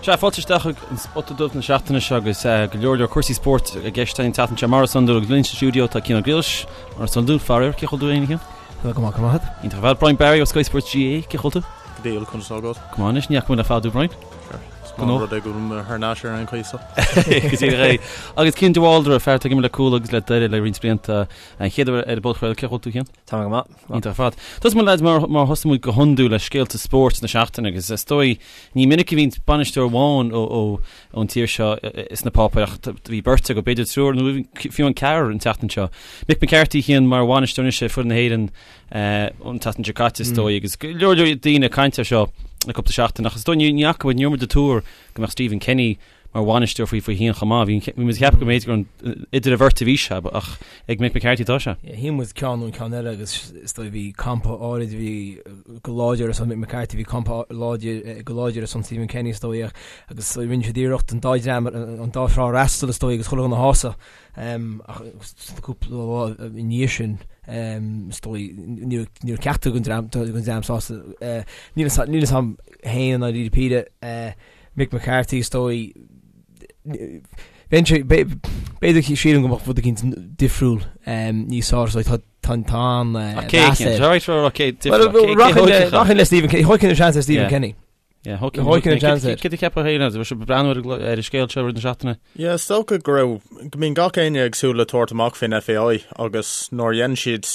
Sea, fáilte isteach chuig an Spota Dubh na seachtaine seo agus go leor leor cúrsaí spóirt i gceist an tseachtain seo mar is iondúil agus linn sa stiúideo tá Cian Ó Griallais, mar is iondúil, faraor, cén chaoi a bhfuil tú féin, a Chian? Tá go maith, go maith. Iontach ar fad. Brian Barry ó Sky Sports GAA, cén chaoi a bhfuil tú? Go diail, conas tá agat? Go maith anois, ní fhaca muid le fada thú, Brian. Is maith an rud é go bhfuil mé thar n-ais ar aon chaoi so. Go díreach é. Agus Cian de Bhaldraithe, fear atá ag imirt le Cuala agus le Doire le roinnt blianta, an chéad uair ar an bpodchraoladh, cén chaoi a bhfuil tú, Cian? Tá mé go maith. Iontach ar fad. Tosóidh muid lads mar mar thosaigh muid go hiondúil le scéalta spóirt na seachtaine agus is dóigh ní minic a bhíonn bainisteoir amháin ó ó ón tír seo sna páipéir ach bhí beirt acu, b'fhéidir triúr nó fiú an ceathrar an tseachtain seo. Mick McCarthy Cian mar bhainisteoir anois ar foireann na hÉireann an tseachtain seo caite is dóigh agus go leor leor daoine ag caint air seo le cúpla seachtain ach is dóigh ní fhaca muid ní raibh muid ag tuar go mbeadh Stephen Kenny mar bhainisteoir faoi faoi féin chomh maith. Bhí bhí muid ag ceapadh go mb'fhéidir gur idir an bheirt a bhí sé ach ag Mick McCarthy atá sé. Shíl muid ceann nó an ceann eile agus is dóigh bhí campa áirid a bhí go láidir ar son Mick McCarthy, bhí campa láidir go láidir ar son Stephen Kenny is dóigh agus rinne siad iarracht an dá dhream an dá thrá a fhreastal is dóigh agus chuile dhuine a shásamh ach cúpla lá i ndiaidh sin is dóigh ní raibh ceachtar den dream den dream sásta. Níl a fhios agam féin i ndáiríre píre. Mick McCarthy is dóigh b'fhéidir sílim go mbeadh rud eicínt difriúil níos fearr so tá tá tá an Rachainn le Stephen Kenny thógfainn an seans ar Stephen Kenny. Thógfainn an seans air. Céard a cheapfá féin as bhí breathnú ar an scéal seo rith na seachtaine? Yeah, is dócha go raibh go mbíonn gach éinne ag súil le tabhairt amach faoin FAI agus nuair a dhein siad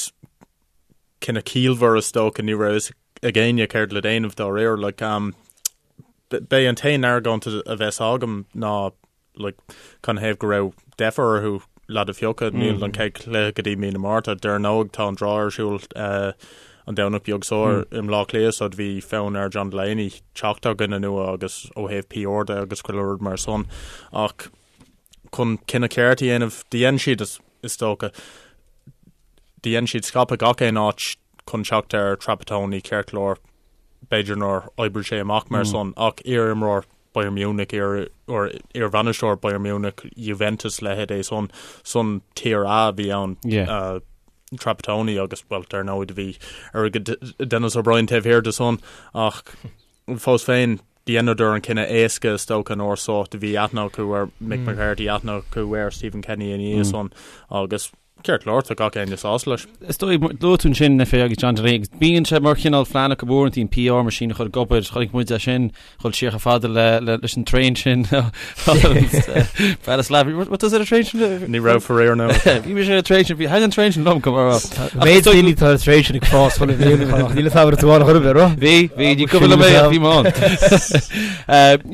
cinneadh ciallmhar is dócha ní raibh fhios ag éinne céard le déanamh dá réir. Like, um, b'é an t-aon argóint a bheas agam ná like, canathaobh go raibh deifir orthu leaid a phiocadh. Mm. Níl an chéad chluiche go dtí mí na Márta. Dar ndóigh tá an draw ar siúl uh, an Domhnach beag seo mm. i mBleá Cliath so bhí fonn ar John Delaney teacht ar dhuine nua agus ó thaobh PR de agus chuile rud mar san. Ach chun cinneadh ceart a dhéanamh, dhein siad is, is dócha dhein siad scaipeadh gach aon áit chun teacht ar Trapattoni ceart go leor, b'fhéidir nár oibrigh sé amach mar san, ach iar-imreoir Bayern Munich, iar, or iar-bhainisteoir Bayern Munich, Juventus, leithéid é san, san Tier A a bhí ann, Yeah. Trapattoni agus, bhuel, dar ndóigh do bhí airgead Denis O'Brien taobh thiar de san, ach fós féin, dheineadar an cinneadh éasca is dócha an uair so, do bhí aithne acu ar Mick McCarthy, aithne acu ar Stephen Kenny ina dhiaidh san agus Ceart go leor, tá gach éinne sásta leis. Is dóigh, luaigh tú ansin na FAI agus John Delaney agus bíonn sé mar chineál phlean acu uaireanta an PR machine a chur ag obair, chonaic muid é sin dhul siar chomh fada le leis an traein sin Bratislava. What does it a train sin? Ní raibh faraor no. Bhí mise ar an traein sin, bhí thaitin an traein sin liom go mar Méid daoine tá ar traein sin ag fás chuile bhliain ach níl a fhios agam an raibh tú ann chor ar bith, raibh? Bhí, bhí, ní cuimhin liom é ach bhí mé ann.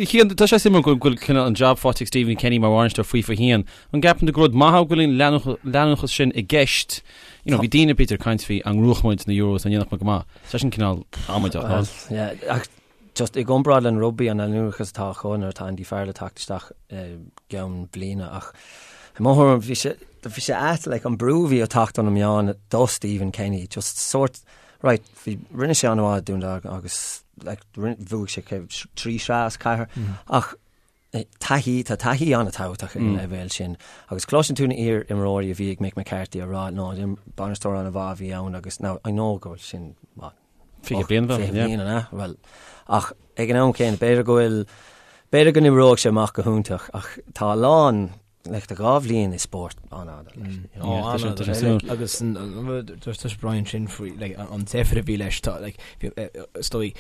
Cian, tá sé suimiúil go bhfuil cineál an job faighte ag Stephen Kenny mar bhainisteoir FIFA 1. An gceapann tú gur rud maith é go bhfuil an leanúnachas sin i gceist? You know, bhí daoine b'fhéidir ag caint faoi an ngnóthódh muid na Euros, an ndéanfadh muid go maith. Tá sin cineál amaideach, ná? Yeah, ach just i gcomparáid le an rugbaí an leanúnachas atá acu nuair atá Andy Farrell ag teacht isteach i gceann bliana ach i mo thuairim bhí sé bhí sé ait like an brú a bhí ag teacht ó na meáin do Stephen Kenny just sort right bhí rinne sé an-mhaith i Dún Dealgan agus like bhuaigh sé trí shraith as ceathair ach Taithí, tá taithí an-tábhachtach ag an leibhéal sin agus cloiseann tú na iar-imreoirí a bhí ag Mick McCarthy ag rá no, bainisteoir an-mhaith a bhí ann agus now I know go bhfuil sin what, 20 bliain 20 bliain an ea? Bhuel, ach ag an am céanna b'fhéidir go bhfuil, b'fhéidir go n-oibreoidh sé amach go hiontach ach tá a lán, like tá 2 bhliain i spórt an-fhada leis. You know? Ó, an-fhada. Agus dúirt Brian sin faoi like, an deifir a bhí leis, tá like, is dóigh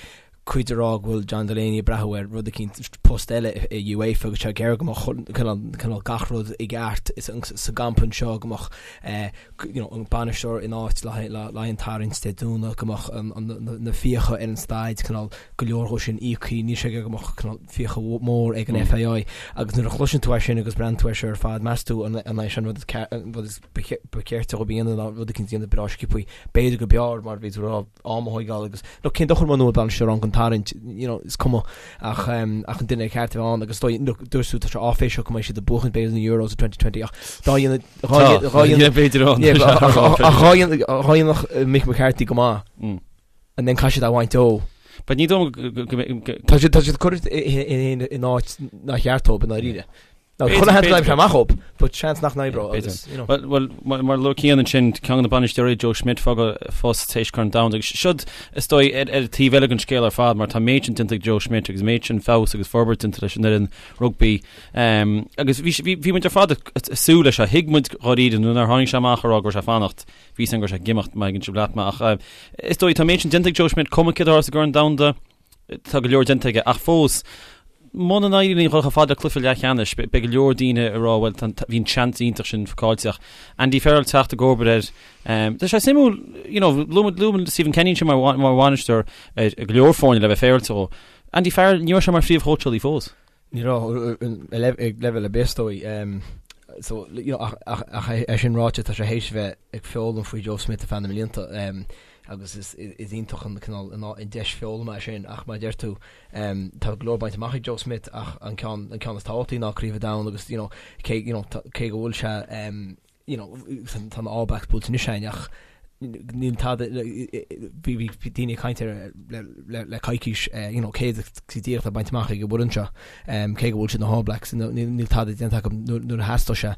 cuid ag rá go bhfuil John Delaney ag breathnú ar rud eicínt, post eile i UEFA agus sé ag iarraidh go mbeadh cineál gach rud i gceart sa gcampa anseo, go mbeadh you know an bainisteoir in áit le haghaidh an tarraingt Dé Domhnaigh, go mbeadh na fiacha ar an staid cineál go leor dhó sin íoctha, níl sé ag iarraidh go mbeadh cineál fiacha mór ag an FAI agus nuair a chloiseann tú é sin agus breathnaíonn tú air seo ar fad, meas tú an é sin an rud is ba cheart dóibh a dhéanamh ná rud eicínt a dhéanamh breá sciobtha, b'fhéidir go b'fhearr mar a bhí tú ag rá. am a thóigeáil agus look cén dochar muna bhfuil bainisteoir ann chun tarraingt you know is cuma ach um, ach an duine ceart a bheith ann agus dóigh look dúirt tú tá sé áiféiseach go mbeidh siad ag buachan b'fhéidir na Euros i 2020 ach dá dhéanamh dhá dhá dhéanamh b'fhéidir ann Yeah, but ach ach dhá dhéanamh dhá dhéanamh Mick McCarthy go maith Mm. and then caithfidh siad a bhaint dó. But ní dóigh go go go Tá siad tá siad curtha in in in áit nár cheart dóibh i ndáiríre. Now, chuile sheans go n-oibreoidh sé amach dhób, but seans nach n-oibreoidh agus, you know. Bhuel, bhuel, mar a luaigh Cian ansin, ceann de na bainisteoirí, Joe Schmidt, fágáil phost tar éis Corn Domhanda agus siod, is dóigh, ar ar an taobh eile den scéal ar fad mar tá an méid sin déanta ag Joe Schmidt agus an méid sin feabhas agus forbairt déanta leis an fhoireann rugbaí. Agus bhí bhí bhí muid ar fad ag súil leis seo, thuig muid dháiríre nuair nár tháinig sé amach a rá go raibh sé ag fanacht, bhí a fhios againn go raibh sé ag imeacht, má thuigeann sibh leat mé ach is dóigh tá an méid sin déanta ag Joe Schmidt, cuma céard a tharla sa gCorn Domhanda, Tá go leor déanta aige ach fós, muna n-éiríonn linn dhul chomh fada le cluiche leathcheannais, beidh go leor daoine ag rá bhuel bhí an seans iontach sin caillte ach Andy Farrell teacht i gcomharba air. Tá sé suimiúil, you know, luaigh muid Stephen Kenny ansin mar mar bhainisteoir ar go leor foirne le bheith féaráilte dhó. Andy Farrell, ní raibh sé mar phríomhchóitseálaí fós. Ní raibh ag leibhéal ar bith is dóigh. So, you know, ach ach é sin ráite tá sé théis bheith ag foghlaim faoi Joe Schmidt ar feadh na mblianta agus is is iontach an cineál an deis foghlama é sin ach mar a deir tú tá go leor bainte amach ag Joe Schmidt ach an ceann an ceann is tábhachtaí ná Craobh an Domhain agus you know cé you know cé go bhfuil sé you know, tá na All Blacks buailte anois againn ach níl tada, bhí daoine ag caint air le coicís, you know, céard go díreach atá bainte amach ag an bhfoireann seo, cé go bhfuil siad na All Blacks, níl tada déanta acu nuair a theastaigh sé.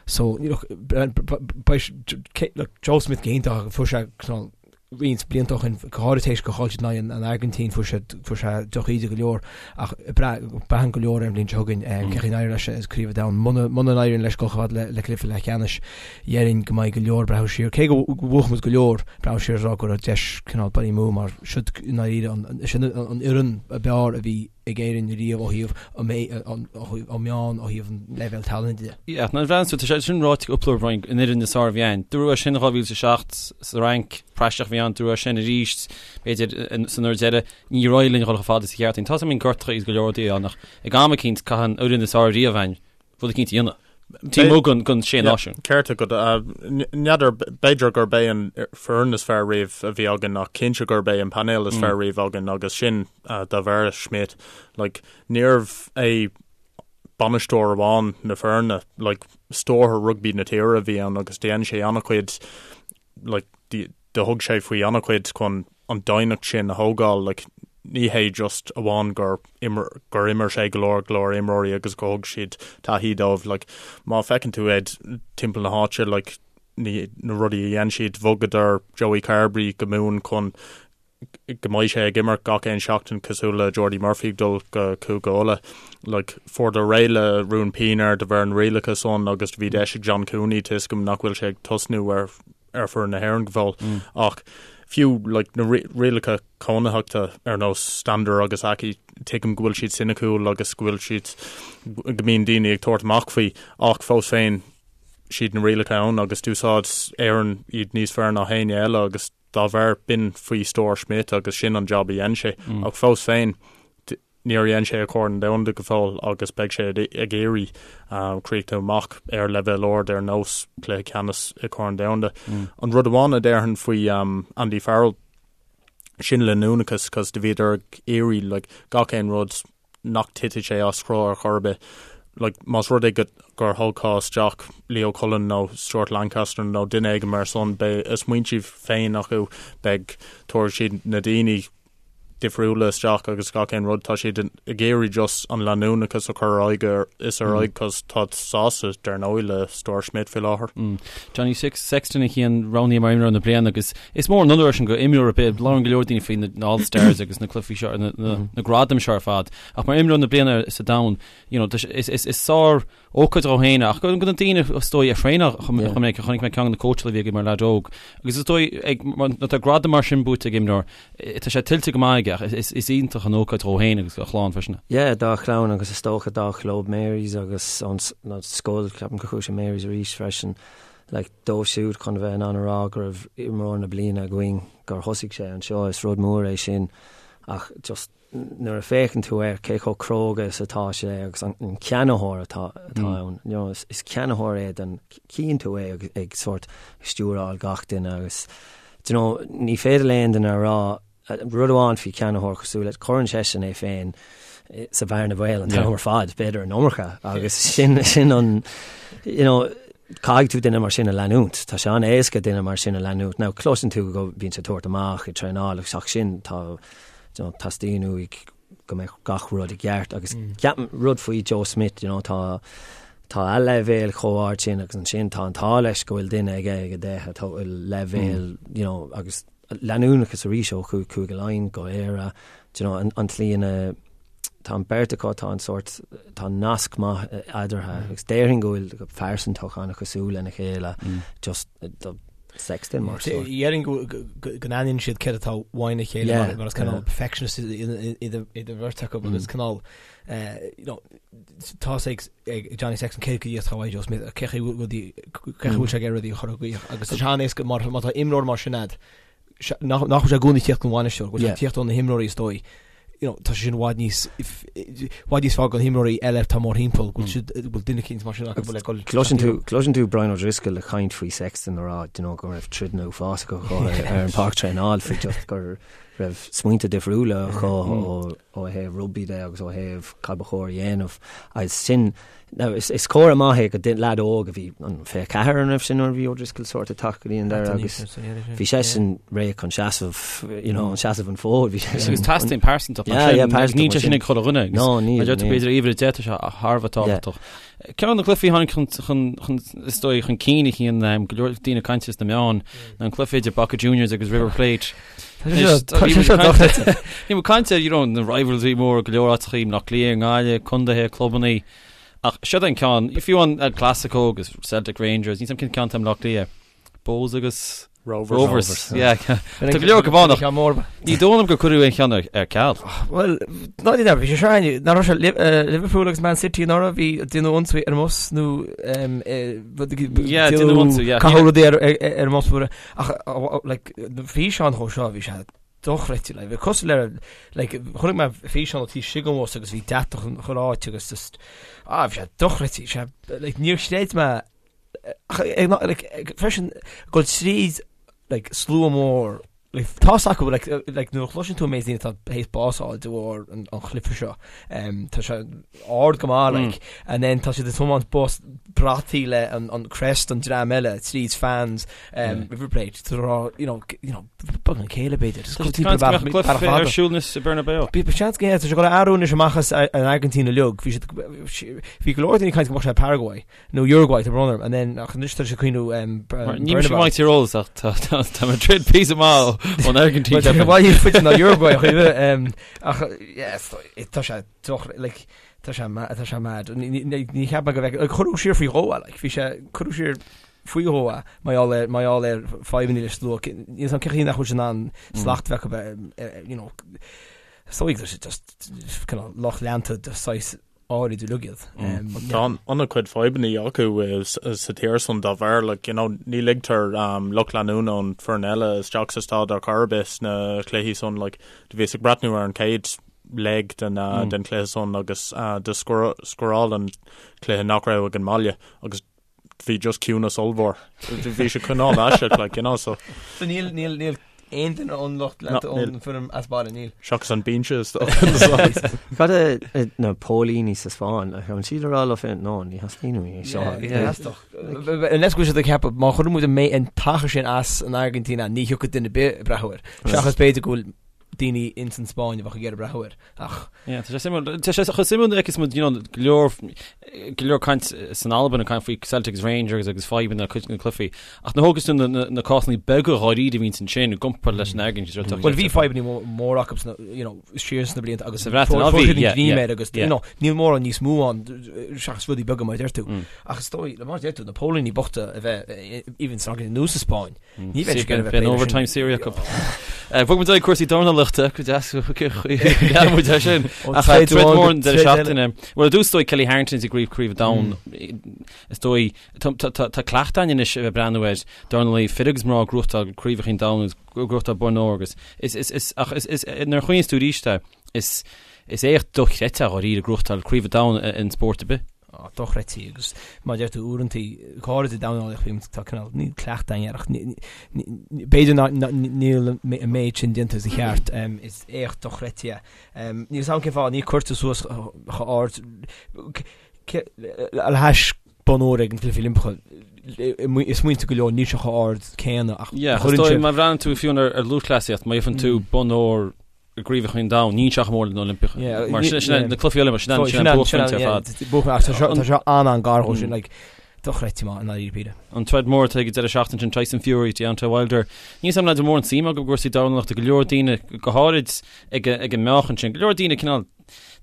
So, look, look, Joe Schmidt go hiontach, fuair sé cineál roinnt blianta ó shin, go háirithe tar éis gur chaill siad in aghaidh an Airgintín, fuair sé fuair sé drochíde go leor ach braitheann go leor ar an bhliain seo chugainn cén chaoi a n-éireoidh leis i gCraobh an Domhain. Muna muna n-éiríonn leis dul chomh fada le cluiche leathcheannais, déarfainn go mbeidh go leor ag breathnú siar, cé go bhuafaidh muid go leor, breathnú siar is rá go raibh deis cineál bainte amú mar siod i ndáiríre an sin an fhoireann ab fhearr a bhí ag Éirinn riamh ó thaobh an meán, ó thaobh an leibhéal tallainne de. Yeah, nuair a bhreathnaíonn tú, tá sé sin ráite cúpla uair Brian, an fhoireann is fearr a bhí ann. Dúradh é sin in 2007 sa Fhrainc, praiseach a bhí ann, dúradh é sin arís, b'fhéidir, san uair deiridh. Níor éirigh linn a dhul chomh fada sa cheártain. Tá a fhios agam gortaithe agus go leor rudaí ann ach ag am eicínt caithfidh an fhoireann is fearr riamh ann rud eicínt a dhéanamh. Taobh amuigh den Sé Náisiún. Ceart agat. N'fheadar, b'fhéidir gurb é an foireann is fearr riamh a bhí againn ach cinnte gurb é an painéal is fearr riamh againn agus sin de bharr Schmidt. Like, níorbh é bainisteoir amháin na foirne, like, stiúrthóir rugbaí na tíre a bhí ann agus dhein sé an-chuid like, do thug sé faoi an-chuid chun an doimhneacht sin a thógáil, like, ní hé just amháin gur imir, gur imir sé go leor, go leor imreoirí agus go thug siad taithí dóibh, like, má feiceann tú iad timpeall na háite, like, ní, na rudaí a dhein siad, bhogadar Joey Carbery go Mumhain chun go mbeidh sé ag imirt gach aon seachtain cosúil le Jordi Murphy ag dul go Cúige Uladh. Like, fuaireadar réidh le Ruan Pienaar de bharr an rialacha san agus do bhí deis ag John Cooney tá a fhios agam nach bhfuil sé ag tosnú ar ar foireann na hÉireann go fóill ach fiú like, na rialacha cónaitheachta ar nós Stander agus Aki tuigim go bhfuil siad soiniciúil agus go bhfuil siad go mbíonn daoine ag tabhairt amach faoi ach fós féin siad na rialacha ann agus d'úsáid Éirinn iad níos fearr ná éinne eile agus Dá bharr, b'in faoi stiúir Schmidt agus sin an jab a dhein sé. Ach fós féin, níor dhein sé a Chorn Domhanda go fóill agus beidh sé ag iarraidh críochnú amach ar leibhéal ard ar nós cluiche ceannais i Corn Domhanda. An rud amháin a déarfainn faoi Andy Farrell, sin leanúnachas cos do bhíodar ag iarraidh like gach aon rud nach dtitfidh sé as cruth ar chor ar bith. Like, más rud é go, gur thógfá isteach Leo Cullen nó Stuart Lancaster nó duine éigin mar san, beidh a smaointe féin acu, beidh, tabharfaidh siad na daoine difriúla isteach agus gach aon rud. Tá siad ag iarraidh just an leanúnachas a chur ar aghaidh is ar aghaidh cos táid sásta, dar ndóigh, le stiúir Schmidt faoi láthair. Johnny Sexton a Chian roghnaithe mar imreoir na bliana agus Is mór an onóir é sin go imreoir ar bith, labhrann go leor daoine faoi na All Stars agus na cluichí seo, na gradaim seo ar fad, ach mar imreoir na bliana sa domhan, you know, is is sár ócáid dhó féin ach go na daoine is dóigh a thraenáil chomh minic a chonaic mé ceann de na cóitseálaithe a bhí aige mar leaid óg agus is dóigh ag nuair atá gradam mar sin buaite ag imreoir, tá sé tuillte go maith aige ach is is iontach an ócáid dhó féin agus a chlann freisin. Yeah, dá chlann agus is dócha dá chlub Mary's agus an scoil, ceapaim gur chuaigh sé Mary's arís freisin. Like, dóibh siúd chun a bheith in ann a rá go raibh imreoir na bliana againn, gur thosaigh sé anseo, is rud mór é sin ach just nuair a féachann tú air, cé chomh cróga is atá sé agus an ceannaitheoir atá ann, you know, is ceannaitheoir é den, chíonn tú é ag, ag sórt stiúráil gach duine agus, do you know, ní féidir le aon duine a rá Rud amháin faoi cheannaitheoir cosúil leis, cuireann seisean é féin sa bhearna bhaoil an t-am ar fad, b'fhéidir an iomarca, agus sin sin an, you know, caithfidh tú duine mar sin a leanúint. Tá sé an-éasca duine mar sin a leanúint. Now, cloiseann tú go mbíonn sé ag tabhairt amach ag traenáil agus ach sin, tá, you know, teastaíonn uaidh. go mbeadh gach rud i gceart agus ceapaim rud faoi Joe Schmidt, you know, tá tá a leibhéal chomh ard sin agus ansin tá an t-ádh leis go bhfuil duine aige ag a deich atá leibhéal, you know, agus leanúnachas arís ó Chúige Laighean go Éire, do you know, an, an tslí ina tá an beirt acu, tá an sórt, tá nasc maith eadarthu agus déarfainn go bhfuil go pearsantach an-chosúil lena chéile, just do Sexton mar sórt. Déarfainn go n-aithníonn siad céard atá uaidh a chéile mar is cineál perfectionist iad an bheirt acu agus cineál you know, tá a fhios ag Johnny Sexton cé go dtí atá uaidh Joe Schmidt, cé chaoi bhfuil sé ag iarraidh rudaí a chur i gcrích agus tá sé an-éasca má tá imreoir mar sin a'd, nach bhfuil sé i gcónaí ag tíocht ón bhainisteoir, go bhfuil sé ag tíocht ó na himreoirí is dóigh. You know, tá sé sin i bhfad níos i bhfad níos fearr do na himreoirí eile atá mórthimpeall, go bhfuil siad go bhfuil duine eicínt mar sin acu le dul Cloiseann tú cloiseann tú Brian O'Driscoll ag caint faoi Sexton ag rá you know, go raibh troideanna uafásacha acu ar ar an pháirc traenáil faoi just go raibh smaointe difriúla acu ó ó thaobh rugbaí de agus ó thaobh cad ba chóir a dhéanamh agus sin Now, is, is comhartha maith é go leaid óg a bhí an 24 an raibh sin nuair a bhí O'Driscoll sórt ag teacht go dtí an deireadh agus bhí seisean réidh chun seasamh, you know, seasamh an fód, bhí seisean. Agus teastaíonn pearsantacht mar sin, yeah, níl sé sin ag chuile dhuine. No, níl. Mar deir tú b'fhéidir uimhir 10 tá sé thar a bheith tábhachtach. Ceann de na cluichí a tháinig chun, chun, chun, is dóigh, chun cinn a tchíonn um, go leor daoine ag caint sna meáin, ná an cluiche idir Boca Juniors agus River Plate. Bhí muid ag caint ar you know, na rivalry mór go leor áiteachaí, Bleá Cliath, Gaillimh, contaetha, clubannaí. Ach seo an ceann, fiú an El Clasico agus Celtic Rangers, níl 's a'm cén ceann atá i mBleá Cliath. Bohs agus Rovers. Rovers. Yeah. Tá go leor go bánach. Ní dóigh liom gur cuireadh aon cheann ar ceal. Bhuel, ná ní bhí sé seo ná raibh sé Liverpool agus Man City anuraidh bhí déanadh ionsaí ar an mbus nó Yeah, déanadh ionsaí, yeah. Caitheadh rudaí ar ar an mbus Ach like na físeáin chomh seo bhí sé dochreidte like bhí cosúil le like chonaic mé físeán ó taobh istigh den bhus agus bhí deatach an chuile áit agus just ah bhí sé dochreidte sé like níor chreid mé ach like freisin go tríd like slua mór like tá's acu like like nuair a chloiseann tú an méid daoine atá théis bás a fháil de bharr an an chluiche seo um, tá sé ard go maith like and then tá siad ag tiomáint bus brataí le an an crest an dream eile tríd fans um, River Plate tá rá you know you know beag an céile b'fhéidir Just Tá timpeall bealach bealach fada. ar siúl anois i Bernabéu. Bhí seans go tá sé ag dul a athrú anois amach as an Airgintín uilig bhí siad bhí go leor daoine ag caint go mbeadh sé Paraguay nó Uruguay tá brón orm and then ach anois tá sé ag cuimhniú um, Ní mise maith tír eolas ach tá tá tá Madrid píosa maith ón Airgintín. Tá sé bhaile faide ná Uruguay ach um, ach yes, tá sé doch like tá sé tá sé mad. Ní cheap mé go bheith like, cuireadh siar faoi dhó é, like, bhí sé cuireadh siar faoi dhó é mar gheall ar mar gheall ar fadhbanna le slua níl 's a'm cén chaoi nach bhfuil sé in ann slacht bheith acu you know is dóigh tá sé just kind of lucht leanta de saghas áirid uilig iad. Tá an-chuid fadhbanna acu sa tír san dá bharr, like, you know, ní ligtear lucht leanúna ón foireann eile isteach sa staid ar chor ar bith sna cluichí san, like, do bhíos ag breathnú ar an chéad leg den den chluiche san agus do scóráil an cluiche nach raibh ag an mbaile agus bhí just ciúnas ollmhór. Bhí sé cineál aisteach, like, you know, so. So níl, níl, níl aon duine ón lucht leanta ón foireann as baile, níl. Seachas an binse is dócha. Cad é na póilíní sa Spáinn, an siad ag rá leo féin, no, ní theastaíonn uainn é seo. Theastódh. Unless go bhfuil siad ag ceapadh, má chuireann muid an t-achar sin as an Airgintín, ní thiocfaidh duine ar bith ag breathnú air. Seachas b'fhéidir go bhfuil daoine ins an Spáinn a bheadh ag iarraidh breathnú air. Ach. Yeah, tá sé suimiúil. Tá sé chomh suimiúil nuair a fheiceas muid, you know, go leor, go leor caint san Albain ag caint faoi Celtic agus Rangers agus fadhbanna le cuid de na cluichí. Ach nuair a thógas tú na, na, na cásanna beaga dháiríre a bhíonns ansin i gcomparáid leis an Airgintín, mm. Bhuel, bhí fadhbanna mór acu sna, you know, siar sna blianta agus Sa Bhreatain, á, bhí, yeah, yeah, agus, you know, níl mórán níos mó ann seachas rudaí beaga mar a deir tú. Mm. Ach is dóigh, le mar a deir tú, na póilíní bochta a bheith even san Airgintín nó sa Spáinn. Ní bheidh sé Beidh an overtime saoire acu. Bhog muid ag cúrsaí dornálaíochta go deas lean muid ar sin. Ach troid mhór an deireadh seachtaine. Bhuel, ar dtús is dóigh Kelly Harrington i gcraobh Craobh an Domhain. Is dóigh tá cleachtadh againn anois a bheith breathnú ar dornálaí fir agus mná ag gnóthachtáil craobhacha an domhain agus gnóthachtáil boinn óir agus is is is ach is is nuair a chuimhníos tú arís air is is éacht dochreidte dháiríre gnóthachtáil craobh an domhain in spórt ar bith. dochreidte agus mar a deir tú uaireanta go háirid i dornálaíocht bíonn tá cineál níl cleachtadh againn air ach b'fhéidir níl an méid sin déanta sa cheart is éacht dochreidte é. Níl 'fhios a'm cén fáth ní cuirtear suas chomh ard le hais bonn óir ag na Cluichí Oilimpeacha i smaointe go leor níl sé chomh ard céanna ach Yeah, má bhreathnaíonn tú fiú ar lúthchleasaíocht má gheibheann tú bonn óir. i gCraobhacha an Domhain, níl sé chomh mór leis na Oilimpeacha. Mar sin sin na cluichí Oilimpeacha, sin sin an buaicphointe ar fad. Buaicphointe, tá seo tá seo an-an-gar dhó sin, like, dochreidte maith i ndáiríre píre. An troid mór atá ag an deireadh seachtaine sin, Tyson Fury, Deontay Wilder. Níl a fhios agam leaids an mórán suim agaibh i gcúrsaí dornálaíochta, go leor daoine, go háirid ag ag an meáchan sin, go leor daoine cineál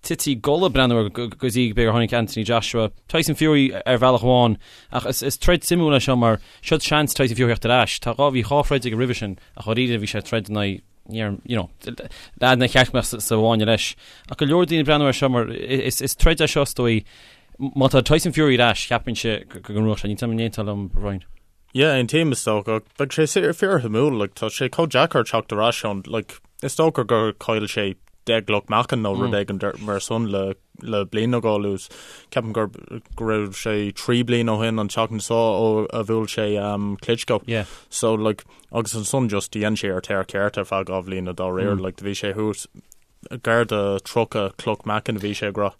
tite i gcodladh breathnú air go dtí b'fhéidir gur tháinig Anthony Joshua, Tyson Fury ar bhealach amháin, ach is is troid suimiúil é seo mar seo seans Tyson Fury theacht ar ais. Tá dhá bhí dhá throid aige roimhe sin ach dháiríre bhí sé ag troid in aghaidh you know, leaid nár cheart go mbeadh sa bhfáinne leis. Ach go leor daoine ag breathnú air seo mar is is troid é seo is dóigh. Má tá Tyson Fury ar ais, cheapfainnse go go ngnóthódh sé. Níl a fhios agam an aontófá liom, Brian. Yeah, aontaím is dócha. Beidh sé fíorshuimiúil, like, tá sé chomh deacair teacht ar ais ón, like, is dócha gur chaill sé 10 gcloch meáchain nó rud éigin mar san le le bliain nó dhó anuas. Ceapaim gur go raibh sé 3 bliana ó shin an tseachtain seo ó a bhuail sé um, Klitschko. Yeah. So like, agus ansan just dhein sé ar tear ceart ar feadh 2 bhliana dá réir, like, do bhí sé thuas gar do 30 cloch meáchain a bhí sé ag rá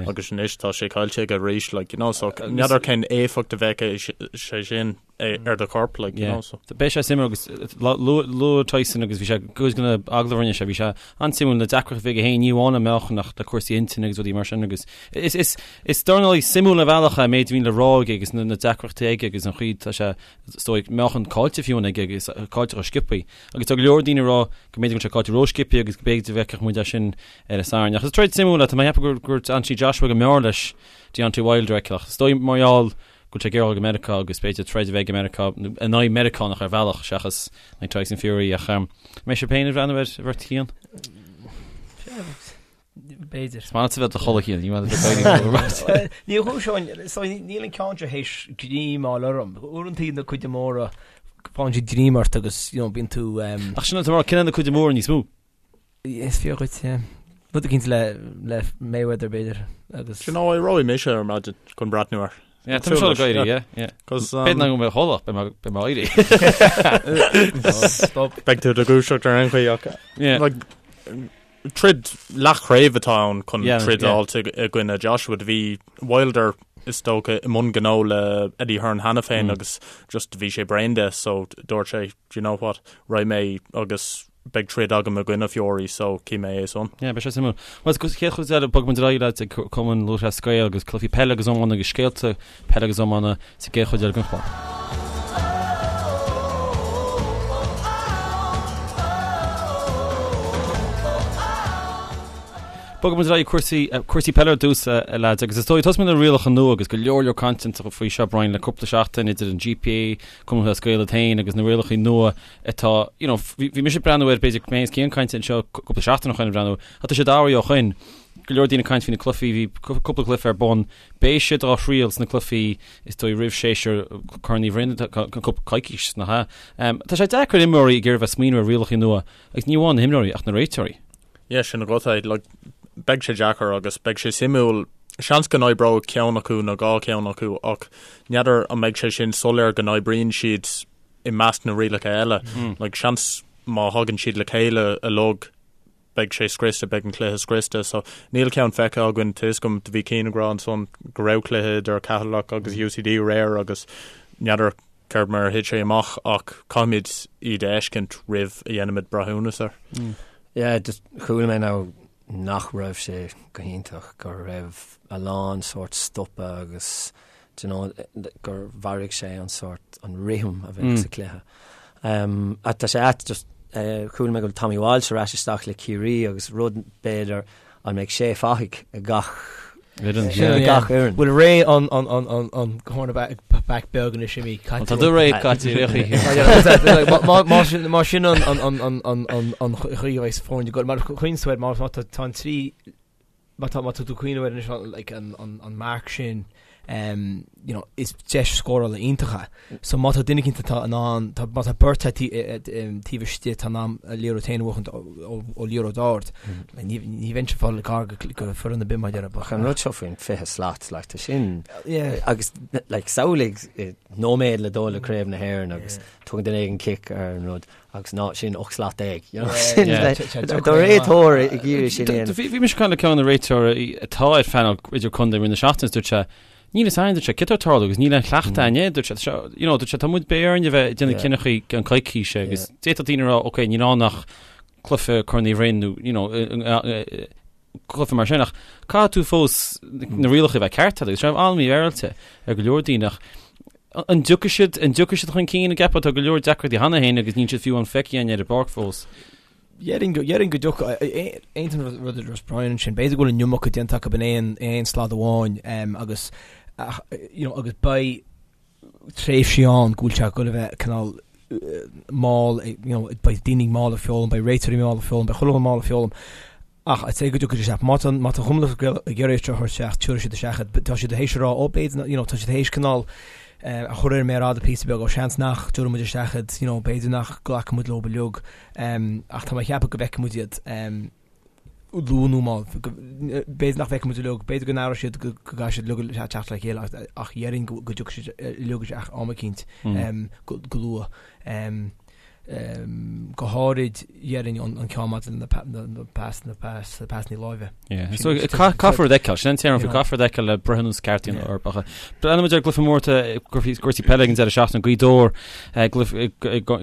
agus anois tá sé caillte aige arís, like, you know, so n'fheadar cén éifeacht a bheadh sé sin ar do chorp, like, you know, so. Beidh sé suimiúil agus luaigh Tyson agus bhí sé cuid de na agallaimh a rinne sé, bhí sé an-suimiúil na deacrachtaí a bhí aige féin, ní amháin an meáchan ach le cúrsaí intinne agus rudaí mar sin agus is is is dornálaí suimiúil ar bhealach é an méid a bhíonn le rá aige agus na na deacrachtaí aige agus an chaoi tá sé is dóigh meáchan caillte fiú aige agus caillte go sciobthaí. Agus tá go leor daoine ag rá go mb'fhéidir go bhfuil sé caillte ró-sciobthaí agus go mb'fhéidir go bhfeicfeadh muid é sin ar an Satharn. Ach is troid suimiúil é, tá mé ag ceapadh gur Anthony Joshua go mb'fhearr leis Deontay Wilder a fheiceáil. Ach is dóigh mar gheall go bhfuil sé ag iarraidh dul go Meiriceá agus b'fhéidir troid a bheidh i Meiriceá in aghaidh Meiriceánach ar bhealach seachas in aghaidh Tyson Fury. Ach mbeidh sibh féin ag breathnú air a bheirt Chian? B'fhéidir. Is maith leat a bheith i do chodladh Cian, ní maith leat a bheith ag éirí. Ní chúis so níl an ceann seo théis greim a fháil orm. Uaireanta na cuide móra faigheann siad greim ort agus you know, bíonn tú um, Ach sin an t-amhrán, cinneadh na cuide móra níos mó. Is fíor dhuit, yeah. Rud eicínt le le Mayweather b'fhéidir agus You know, éireoidh mise ar maidin chun breathnú air. Yeah, tá mise ag éirí, yeah, yeah. Cos, um, B'fhéidir nach mbeidh mé i mo chodladh, beidh mé- beidh mé ag éirí. Stop. Beidh tú i do dhúiseacht ar aon chaoi ach Yeah. like, Troid leathchraobh atá ann chun troid a fháilt i gcoinne Joshua. Do bhí Wilder is dócha i mbun gnó le Eddie Hearn cheana féin agus just bhí sé bréan de so dúirt sé do you know what, raghaidh mé agus beidh troid agam i gcoinne Fury so cífidh mé é san. Yeah, beidh sé suimiúil. Bhuel, sa chéad chuid eile, bogfaidh muid ar aghaidh leat ag Cumann Lúthchleas Gael agus cluichí peile agus iomána agus scéalta peile agus iomána sa gcéad chuid eile den chlár. Bogfaidh muid ar aghaidh cúrsaí, cúrsaí peile ar dtús, a leaids, agus is dóigh, tosóidh muid le rialacha nua agus go leor leor cainte faoi seo, Brian, le cúpla seachtain idir an GPA, Cumann Lúthchleas Gael iad féin agus na rialacha nua atá, you know, bhí, bhí mise ag breathnú air, b'fhéidir, mé is Cian ag caint anseo cúpla seachtain ó shoin ag breathnú, ach tá sé d'athraithe ó shoin. Go leor daoine ag caint faoi na cluichí, bhí cúpla cluiche ar bun, Beidh siad á thriail sna cluichí is dóigh roimh séasúr Corn Uí Bhroin cúpla coicís, nach ea? Tá sé deacair imreoirí ag iarraidh bheith smaoineamh ar rialacha nua agus ní amháin na himreoirí ach na réiteoirí. Yeah, sin agat é. Like, beidh sé deacair agus beidh sé suimiúil. Seans go n-oibreoidh ceann acu nó dhá cheann acu ach n'fheadar an mbeidh sé sin soiléir go n-oibríonn siad i measc na rialacha eile. Like, seans má thagann siad le chéile uilig beidh sé scriosta, beidh an cluiche scriosta. So níl ceann feicthe againn, tá 'fhios agam, do bhí Cian ag rá ansan go raibh cluiche idir Ceatharlach agus UCD aréir agus n'fheadar céard mar a thit sé amach ach caithfimid iad a fheiscint roimh a dhéanfaimid breithiúnas air. Yeah, just chuala mé now nach raibh sé go hiontach, go raibh a lán sórt stopadh agus do you know, gur mharaigh sé an sórt, an rithim a bheadh sa chluiche. Um, ach tá sé ait, just, eh, chuala mé go bhfuil Tommy Walsh ar ais isteach le Ciarraí agus rud b'fhéidir an mbeidh sé fathaigh ag gach Fhoireann, Sin, yeah. yeah. gach fhoireann. Bhfuil ré an, an, an, an, an cornerback back beag anois imithe caite. Tá do ré caite ar chaoi. Má- má sin má sin an an an an an an an chaoi a bheidh foirne ag dul mar chuin sweat má má tá tá an trí Má tá má tá tú ag cuimhneamh air anois like an an an marc sin um, you know, is deis scórála iontach é. So má tá duine eicínt atá in ann tá má tá beirt tá taobh istigh atá in ann an liathróid féin a bhuachaint ó ó liathróid ard. Like, ní ní bheinnse ag fáil gar go go foireann ar bith mar dhea. Ach an rud seo faoin 20 slat, like, tá sin Yeah. agus like, samhlaigh eh, nóiméad le dul le Craobh na hÉireann agus tugann duine éigin cic ar an rud. Agus ná sin 18 slat. You know, sin do réiteoir ag iarraidh sin a dhéanamh. Bhí mise ag caint le ceann de na réiteoirí atá ar phainéal idirchontae i rith na seachtaine is dúirt sé, níl a fhios againn, dúirt sé, céard atá ag tarlú agus níl aon chleachtadh againn air, dúirt sé, you know, dúirt sé, tá muid beidh orainn a bheith ag déanamh cinneadh i gceann coicíse agus d'fhéadfadh daoine a rá, ok, níl ann ach. Cluiche Corn Uí Rinn nó you know cluiche mar sin ach caithfidh tú fós na rialacha a bheith ceart agus sé an-mhífhéaráilte ar go leor daoine ach an dtiocfaidh siad an dtiocfaidh siad chun cinn an gceapfá tá go leor deacrachtaí cheana féin agus níl siad fiú an feicthe againn ar an bpáirc fós. Déarfainn go déarfainn go dtiocfaidh aontaím an rud a dúirt Brian ansin b'fhéidir go bhfuil an iomarca déanta acu in aon aon slad amháin agus you know agus beidh tréimhsí ann go bhfuil sé ag goil a bheith cineál mall, you know, beidh daoine mall ag foghlaim, beidh réiteoirí mall ag foghlaim, beidh chuile dhuine mall ag foghlaim. Ach I'd say go dtiocfaidh isteach. Má tá má tá Cumann Lúthchleas Gael ag iarraidh seo a thabhairt isteach, tabharfaidh siad isteach iad. Tá siad théis a rá, ó b'fhéidir, you know, tá siad théis cineál a chur ar an méar fhada píosa beag, ó seans nach dtabharfaidh muid isteach iad, you know, b'fhéidir nach nglacfaidh muid leo uilig. Ach tá mé ag ceapadh go bhfeicfidh muid iad. luath nó mall. B'fhéidir nach bhfeicfidh muid uilig, b'fhéidir go n-athróidh siad go gcaithfidh siad uilig teacht le chéile ach déarfainn go dtiocfaidh siad uilig isteach am eicínt go luath. Go háirid déarfainn an ceann maidir le na pasanna láimhe. So caithfear a fheiceáil, sin an téarma faoi, caithfear a fheiceáil le breithiúnas ceart a dhéanamh orthu. Ach breathnóidh muid ar an gcluiche mór cúrsaí peile ag an deireadh seachtaine, Gaoth Dobhair ag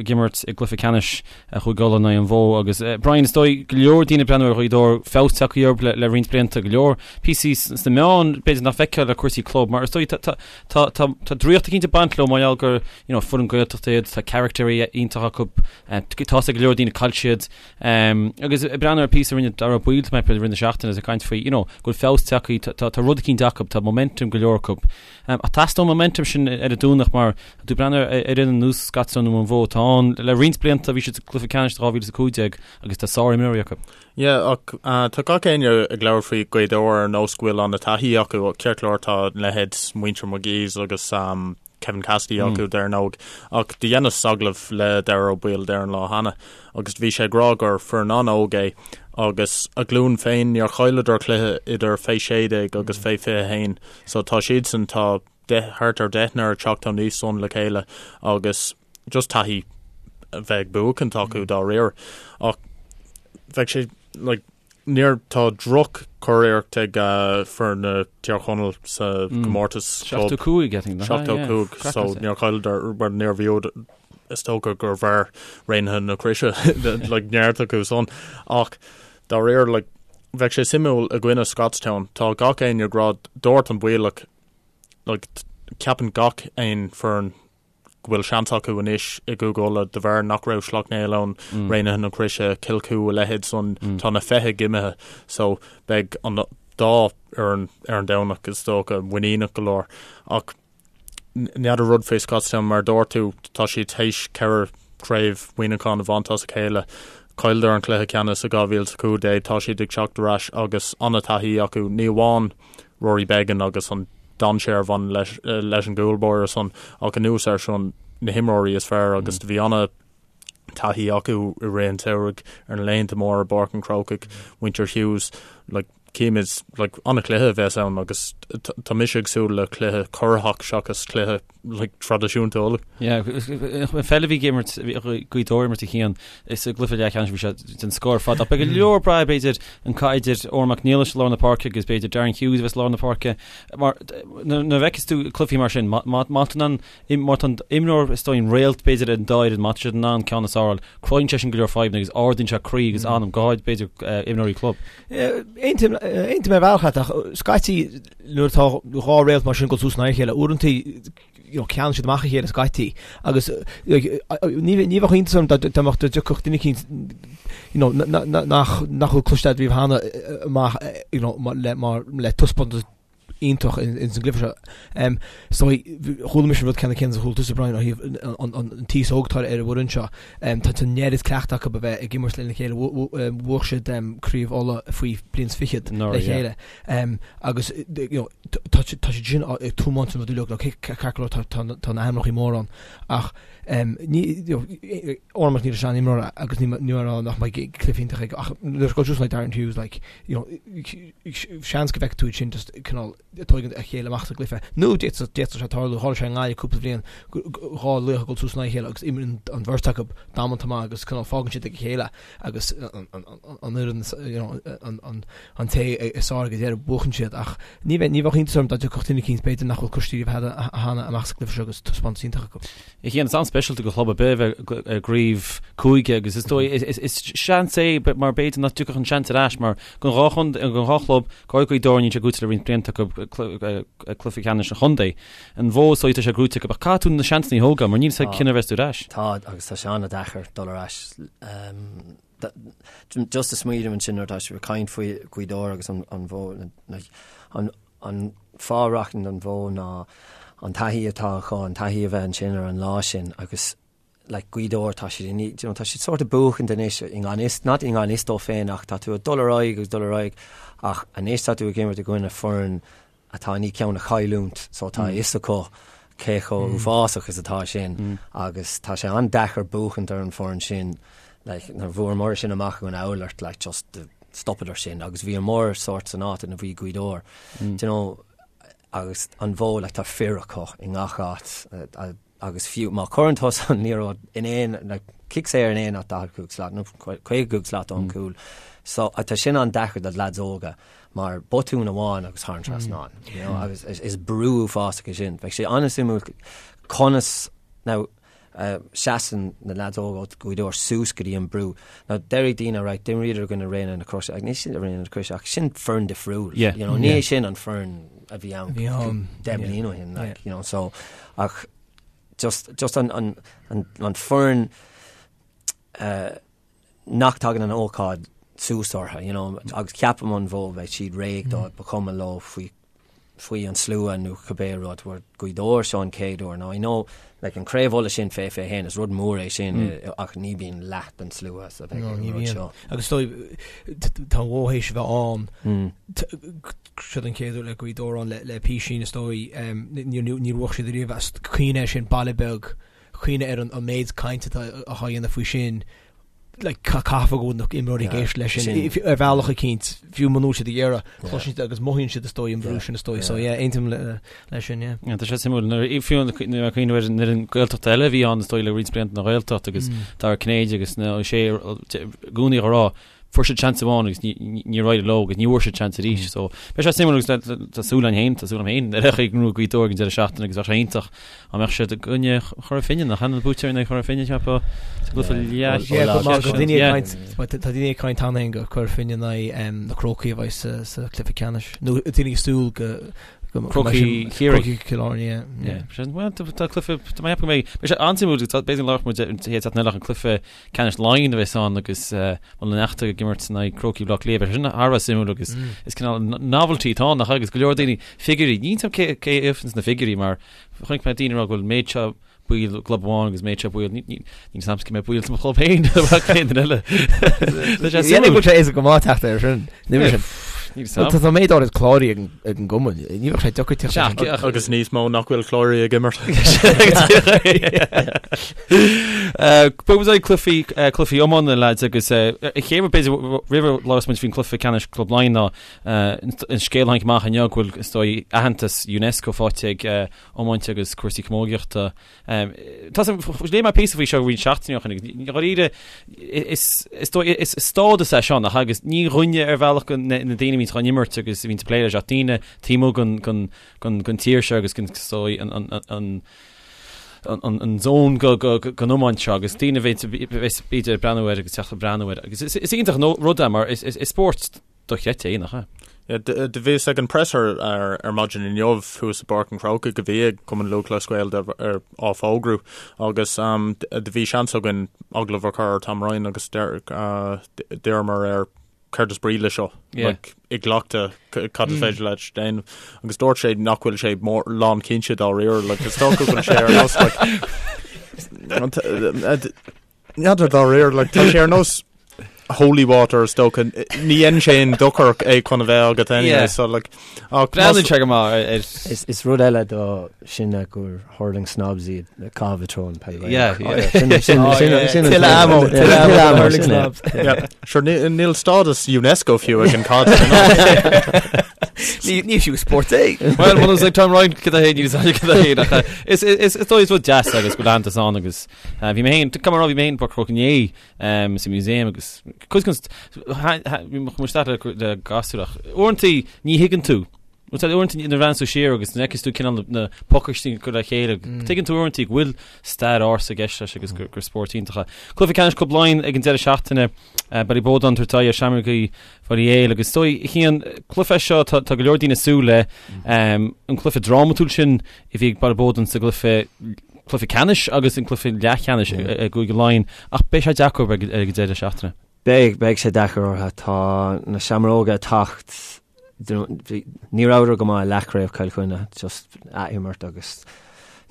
imirt i gcluiche ceannais Chúige Uladh in aghaidh an Mhódh agus Brian is dóigh go leor daoine ag breathnú ar Ghaoth Dobhair feabhas tagtha orthu le, le roinnt blianta go leor píosaí sna meáin b'fhéidir nach bhfeicfeá le cúrsaí club mar is dóigh tá, tá, tá, tá, tá draíocht eicínt ag baint leo mar gheall gur you know, foireann Gaeltachta iad tá caractéirí iontach acu eh, tá go leor daoine caillte siad um, agus ag breathnú ar píosa a rinne Dara Ó Baoill tá mé i rith na seachtaine is ag caint faoi you know, go bhfuil feabhas tagtha tá, tá, tá rud eicínt acu tá momentum go leor acu Ach teastóidh an momentum sin ar an Domhnach mar tá tú ag breathnú ar fhoireann ar nós Scotstown nó an Mhódh atá ann le roinnt blianta, bhí siad sa gcluiche ceannais 2015 agus tá sárimreoirí acu. Yeah, ach tá gach éinne ag labhairt faoi Ghaoth Dobhair ar nós go bhfuil an-taithí acu. Ceart go leor tá leithéid muintir McGee's agus Kevin Cassidy acu dar ndóigh, ach do dheineas agallamh le Dara Ó Baoill ar an lá cheana agus bhí sé ag rá gur foireann an-óg é agus a ghlúin féin níor chailleadar cluiche idir fé 16 agus fé 21 So tá siadsan, tá deich, thart ar deichniúr ag teacht aníos san le chéile agus just taithí a bheith ag buachaint acu dá réir. Ach bheadh sé, like, níor, tá droch-churiarracht ag foireann na Tír Chonaill sa gcomórtas club. 75, I think, nach ea? 75, so níor chailleadar, well, níor bhuadar, is dócha gur mhair Raonaithe na Croise, like, neart acu san. Ach dá réir, like, Bheadh sé suimiúil i gcoinne Scotstown. Tá gach éinne ag rá, dúirt an Baoilleach, like, ceapann gach aon foireann go bhfuil seans acu anois i gCúige Uladh de bharr nach raibh Sleacht Néill ann, Raonaithe na Croise, Cill Chua, a leithéid san, tá na feithidh imithe. So beidh an dá fhoireann ar an Domhnach is dócha muiníneach go leor. Ach N'fheadar rud faoi Scotstown, mar a dúirt tú, tá siad théis 4 chraobh Mhuineacháin a bhaint as a chéile. Chailleadar an cluiche ceannais i 2015, tá siad ag teacht ar ais agus an-taithí acu, ní amháin Rory Beggan agus an dainséar a bhaineann leis leis an gcúl báire san, ach anuas air sin na himreoirí is fearr agus do bhí ana taithí acu i rith an tsamhraidh ar na laethanta móra i bPáirc an Chrócaigh, muintir Hughes, like, Címid, like, an-chluiche a bheas ann agus tá mise ag súil le cluiche corraitheach seachas cluiche, like, traidisiúnta Uladh. Yeah, an pheil a bhí ag imirt, Gaoth Dobhair imirt a Chian, is i gcluiche leathcheannais bhí sé den scoth ar fad. Ach beidh go leor ag brath b'fhéidir an cath idir Odhrán Mac Niallais i lár na páirce agus b'fhéidir Darren Hughes a bheas i lár na páirce. Mar nuair a fheiceas tú cluichí mar sin, má má tá an Má tá an imreoir is dóigh an réalt b'fhéidir ar an dá fhoireann, má tá siad in ann ceann is fearr a fháil, cruthaíonn sé sin go leor fadhbanna agus ardaíonn sé croí agus anam, go háirid b'fhéidir imreoirí club. Aontaím ar bhealach leat ach scaití nuair atá dhá réalt mar sin ag dul suas in aghaidh a chéile, uaireanta you know, ceann siad amach a chéile scaití agus ní ní bheadh iontas orm dá dá mbeadh dá dtiocfadh duine eicínt you know, nach nach bhfuil cloiste agat riamh cheana amach you know, le mar le taispeántas iontach ins an gcluiche seo. So chuala mise an rud ceanna céanna is a chuala tusa Brian ó thaobh an t-aos óg atá ar an bhfoireann seo. Tá an oiread cleachta acu a bheith ag imirt lena chéile. Bhuaigh siad Craobh Uladh faoi bliain is fichead le chéile. Agus tá siad sin ag tiomáint an rud uilig, ceart go leor tá na hainmneacha móra ann ach Odhrán Mac Niallais an-imreoir agus ní mar rá nach mbeidh cluiche iontach aige ach nuair a go just like Darren Hughes like you know seans go bhfeicfidh tú iad sin just cineál ag tógaint a chéile amach sa gcluiche. Nó d'fhéadfadh d'fhéadfadh sé tarlú, tharla sé i nGaillimh cúpla bhliain dhá laoch ag dul suas in aghaidh a chéile agus imríonn an bheirt acu damanta maith agus cineál fágann siad ag a chéile agus an fhoireann you know an an an té is fearr ag an deireadh buachann siad ach ní bheidh ní bheadh iontas orm. orm dá dtiocfadh duine eicínt b'fhéidir nach bhfuil cloiste riamh cheana amach sa gcluiche seo agus taispeántas iontach acu. A Chian, is an-speisialta do chlub ar bith a bheith i gcraobh cúige agus is dóigh, is seans é mar b'fhéidir nach dtiocfadh an seans ar ais mar don dhá chontae, don dhá chlub, go háirithe Gaoth Dobhair níl sé gnóite le roinnt blianta acu cluiche ceannais an chontae. An Bhó is dóigh tá sé gnóite acu ach caithfidh tú na seansanna a thógáil mar níl a fhios agat cionn a bheas tú ar ais. Tá agus tá sé an-deacair dul ar ais. Just ag smaoineamh ansin nuair atá sibh ag caint faoi Ghaoth Dobhair agus an Bhó, an an fáth a rachainn don Bhó ná an taithí atá acu, an taithí a bheith ansin ar an lá sin agus like Gaoth Dobhair tá siad in, you know, tá siad sort of buachaint anois i ngan fhios, not i ngan fhios dóibh féin ach tá tú ag dul ar aghaidh agus dul ar aghaidh ach anois tá tú ag imirt i gcoinne foireann atá i ndiaidh ceann a chailliúint so tá a fhios acu cé chomh uafásach is atá sin agus tá sé an-deacair buachaint ar an foireann sin like nuair a bhuamar sin amach in Oulart like just the stopadar sin agus bhíomar sort san áit ina bhí Gaoth Dobhair do you know agus an Bhó like tá fir acu i ngach áit agus fiú má chuireann tusa an liathróid in aon like cic saor in aon áit 45 slat nó 55 slat ón gcúl so tá sin an-deacair do lads óga mar botún amháin agus thar an trasnán you know agus is brú uafásach é sin bheadh sé an-suimiúil conas now seasann na leaids óga ó Ghaoth Dobhair suas go dtí an brú. Now déarfaidh daoine right d'imríodar i gcoinne Raonaithe na Croise ach ní sin Raonaithe na Croise ach sin foireann difriúil. Yeah. You know, ní sin an foireann a bhí ann 10 bliain ó shin like, you know, so ach just, just an, an, an, an foireann uh, nach dtagann an ócáid suas orthu, you know, agus ceapaim an Bhó beidh siad réidh dó, ba chuma leo faoi faoi an slua nó cibé rud, where Gaoth Dobhair seo an chéad uair. Now I know like an Craobh Uladh sin fé 21 is rud mór é sin mm. ach ní bhíonn leath den slua sa bheith an rud seo. Agus tá an Bhó théis a bheith ann mm. seo an chéad uair le Gaoth Dobhair ann le písín is dóigh níor bhuaigh siad riamh as cuimhne air sin baile beag cuimhne ar an méid cainte atá á dhéanamh faoi sin, like, caithfidh go bhfuil na imreoirí ag éisteacht leis sin ar bhealach eicínt, fiú muna bhfuil siad ag iarraidh, cloiseann siad agus mothaíonn siad is dóigh an brú sin is dóigh, so yeah, aontaím leis sin, yeah. Yeah, tá sé suimiúil, nuair fiú nuair a cuimhneamh ar an fhoireann Gaeltachta eile a bhí ann is dóigh le roinnt blianta na Gaeltacht agus Dara Cinnéide agus na Ó Sé i gcónaí á rá fuair siad seans amháin agus níor éirigh leo agus ní bhfuair siad seans arís. So beidh sé suimiúil agus tá súil againn féin, tá súil agam féin ar aghaidh chuig Gaoth Dobhair ag an deireadh seachtaine agus bheadh sé iontach dá mbeadh siad i gcoinne Chora Finne nach ea na buaiteoirí in aghaidh Chora Finne cheapfá sa gcluiche leathcheannais. Tá daoine ag caint cheana féin gur Cora Finne in aghaidh na Crócaigh a bheidh sa chluiche ceannais nó daoine ag súil go Crócaigh Chiarraí. Crócaigh Chill Airne, yeah. Bhuel, tá cluiche, tá mé ag ceapadh go mbeidh, beidh sé an-suimiúil, b'fhéidir go labhróidh muid an chéad seachtain eile ach an cluiche ceannais Laighean a bheas ann agus Muileann an Fheachta ag imirt in aghaidh Crócaigh Bhaile Átha Cliath. Beidh sé sin thar a bheith suimiúil agus is cineál novelty atá ann nach ea agus go leor daoine figiúirí, níl 'fhios a'm cé cé a fhaigheanns na figiúirí mar chonaic mé daoine ag rá go bhfuil méid seo baill i gclub amháin agus méid seo baill níl 'fhios a'm cé mhéad baill sa mo chlub féin ach aon duine eile. Tá sé suimiúil. Bhfuil sé éasca go maith teacht air sin. Níl sin. Tá tá méid áirid cláraithe ag an- ag an gcumann. Ní bheadh sé deacair teacht air sin. Agus níos mó nach bhfuil cláraithe ag imirt. Bogfaidh muid cluichí cluichí iomána lads agus an chéad rud b'fhéidir roimh a labhras muid faoin cluiche ceannais Club Laighean ná an scéal a tháinig amach inniu go bhfuil is dóigh aitheantas UNESCO faighte ag iomáint agus cúrsaí camógaíochta. Tá léigh mé píosa faoi seo roinnt seachtainí ó shin agus dháiríre is is dóigh is stádas é seo nach agus ní dhuine ar bhealach na daoine a bhíonns chun imirt agus a bhíonns ag plé leis ach daoine taobh amuigh den den tír seo agus den is dóigh an an an an zón den iomáint seo agus daoine a bheas b'fhéidir ag breathnú air agus teacht ag breathnú air agus is iontach an rud é mar is spórt dochreidte é nach ea? Do bhíos ag an presser ar maidin inniu thuas i bPáirc an Chrócaigh a bhí ag Cumann Lúthchleas Gael á fógrú agus do bhí seans againn agallamh a chur ar Tom Ryan agus d'iarramar air céard is brí le seo like, i gcleachtadh cad is féidir leat déanamh agus dúirt sé nach bhfuil sé mór lán cinnte dáiríre like, is dócha go bhfuil sé ar nós like, N'fheadar dáiríre like, tá sé ar nós holy water is dócha ní dhéanann sé aon dochar é chun a bheith agat anyway Yeah. so like ach Breathnaíonn sé go maith ar Is, is rud eile do sin gur hurling snobs iad caitheamh i dtreo an peil Yeah, yeah. Sin sin Oh, sin yeah. sin an Tuilleadh ammo, yeah, tuilleadh ammo tuilleadh ammo, hurling sin é. snobs. Yeah. Sure, ní- níl stádas UNESCO fiú ag an cad. Ní ní fiú spórt é. Well, muna ag Tom Ryan cad é níl cad é ach, eh, is is is dóigh is rud deas agus go leantas ann agus eh, bhí mé féin come on, bhí mé féin i bPáirc an Chrócaigh inné um, sa museum agus cuid den bhí mo isteach le le gasúr ach uaireanta ní thuigeann tú. Bhuel tá uaireanta nuair a bhreathnaíonn tú siar agus nuair a fheiceanns tú cineál na pacáistí ag cur le chéile, tuigeann tú uaireanta go bhfuil stair ársa i gceist leis agus gur spórt iontach é. Cluiche ceannais Club Laighean ag an deireadh seachtaine, Ballyboden ag tabhairt aghaidh ar Seamrógaí Bhaile Héil agus is dóigh a Chian, cluiche seo tá go leor daoine ag súil le, an cluiche drámatúil sin a bhí ag Ballyboden sa gcluiche cluiche ceannais agus an cluiche leathcheannais i gCúige Laighean ach beidh sé deacair ag an deireadh seachtaine. Beidh, beidh sé deacair orthu. Tá na Seamróga ag teacht Ní rabhadar go maith i leathchraobh Chill Chainnigh, just athimirt agus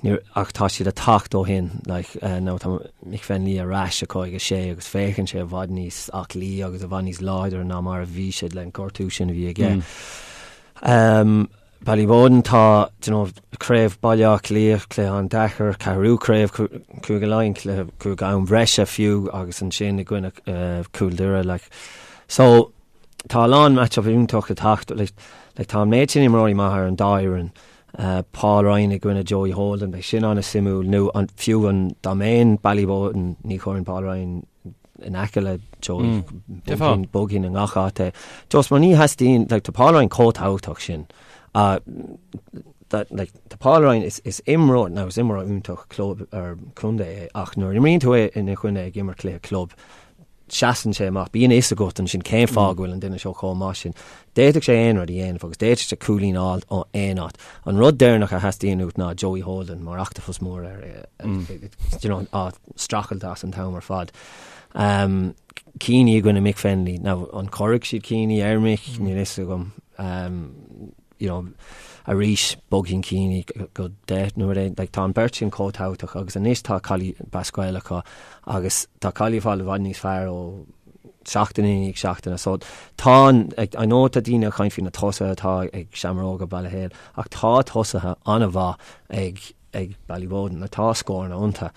ní, ach tá siad ag teacht ó shin, like, now tá Mick Fennelly ar ais acu ag a sé agus féachann sé i bhfad níos aclaí agus i bhfad níos láidre ná mar a bhí sé le an gortú sin a bhí aige. Um, Ballyboden tá, you know, craobh Baile Átha Cliath, cluiche an-deacair, ceathrú craobh Cúige Laighean, cluiche cúig am bhreise fiú agus ansin i gcoinne uh, Cúl Doire, like. So, Tá a lán match-up iontach ag teacht, like tá an méid sin imreoirí maithe ar an dá fhoireann. Paul Ryan i gcoinne Joey Holden, beidh sin an-suimiúil, nó an, fiú an, dá mbeinn Ballyboden, ní chuirfinn Paul Ryan in aice le Joey, mm. bogfainn i ngach áit é. Just mar ní theastaíonn, like, tá Paul Ryan chomh tábhachtach sin. Uh, that, like, tá Paul Ryan is, is imreoir, now is imreoir iontach club ar contae é, ach nuair imríonn tú é ina choinne ag imirt cluiche club, seasann sé amach, bíonn a fhios agat ansin cén fáth go bhfuil an duine seo chomh maith sin. D'fhéadfadh sé aon rud a dhéanamh agus d'fhéadfadh sé cúilín a fháil ó aon áit. An rud deireanach a theastaíonn uait ná Joey Holden mar ochtapus mór ar, you know, á streachailt as an t-am ar fad. Um, Keaney i gcoinne Mick Fennelly. Now, an cuirfidh siad Keaney ar Mick? Níl a fhios agam. Um, you know, arís bogfainn Keaney go 10 nó rud éigin, like, tá an beirt sin chomh tábhachtach agus anois tá Collie Basquel acu agus tá Collie ag fáil i bhfad níos fearr ó seachtain i ndiaidh seachtaine. So tá an, like, I know tá daoine ag caint faoi na tosaithe atá ag Seamróga Baile Héil ach tá tosaithe an-mhaith ag ag Ballyboden, like, tá scóranna iontu.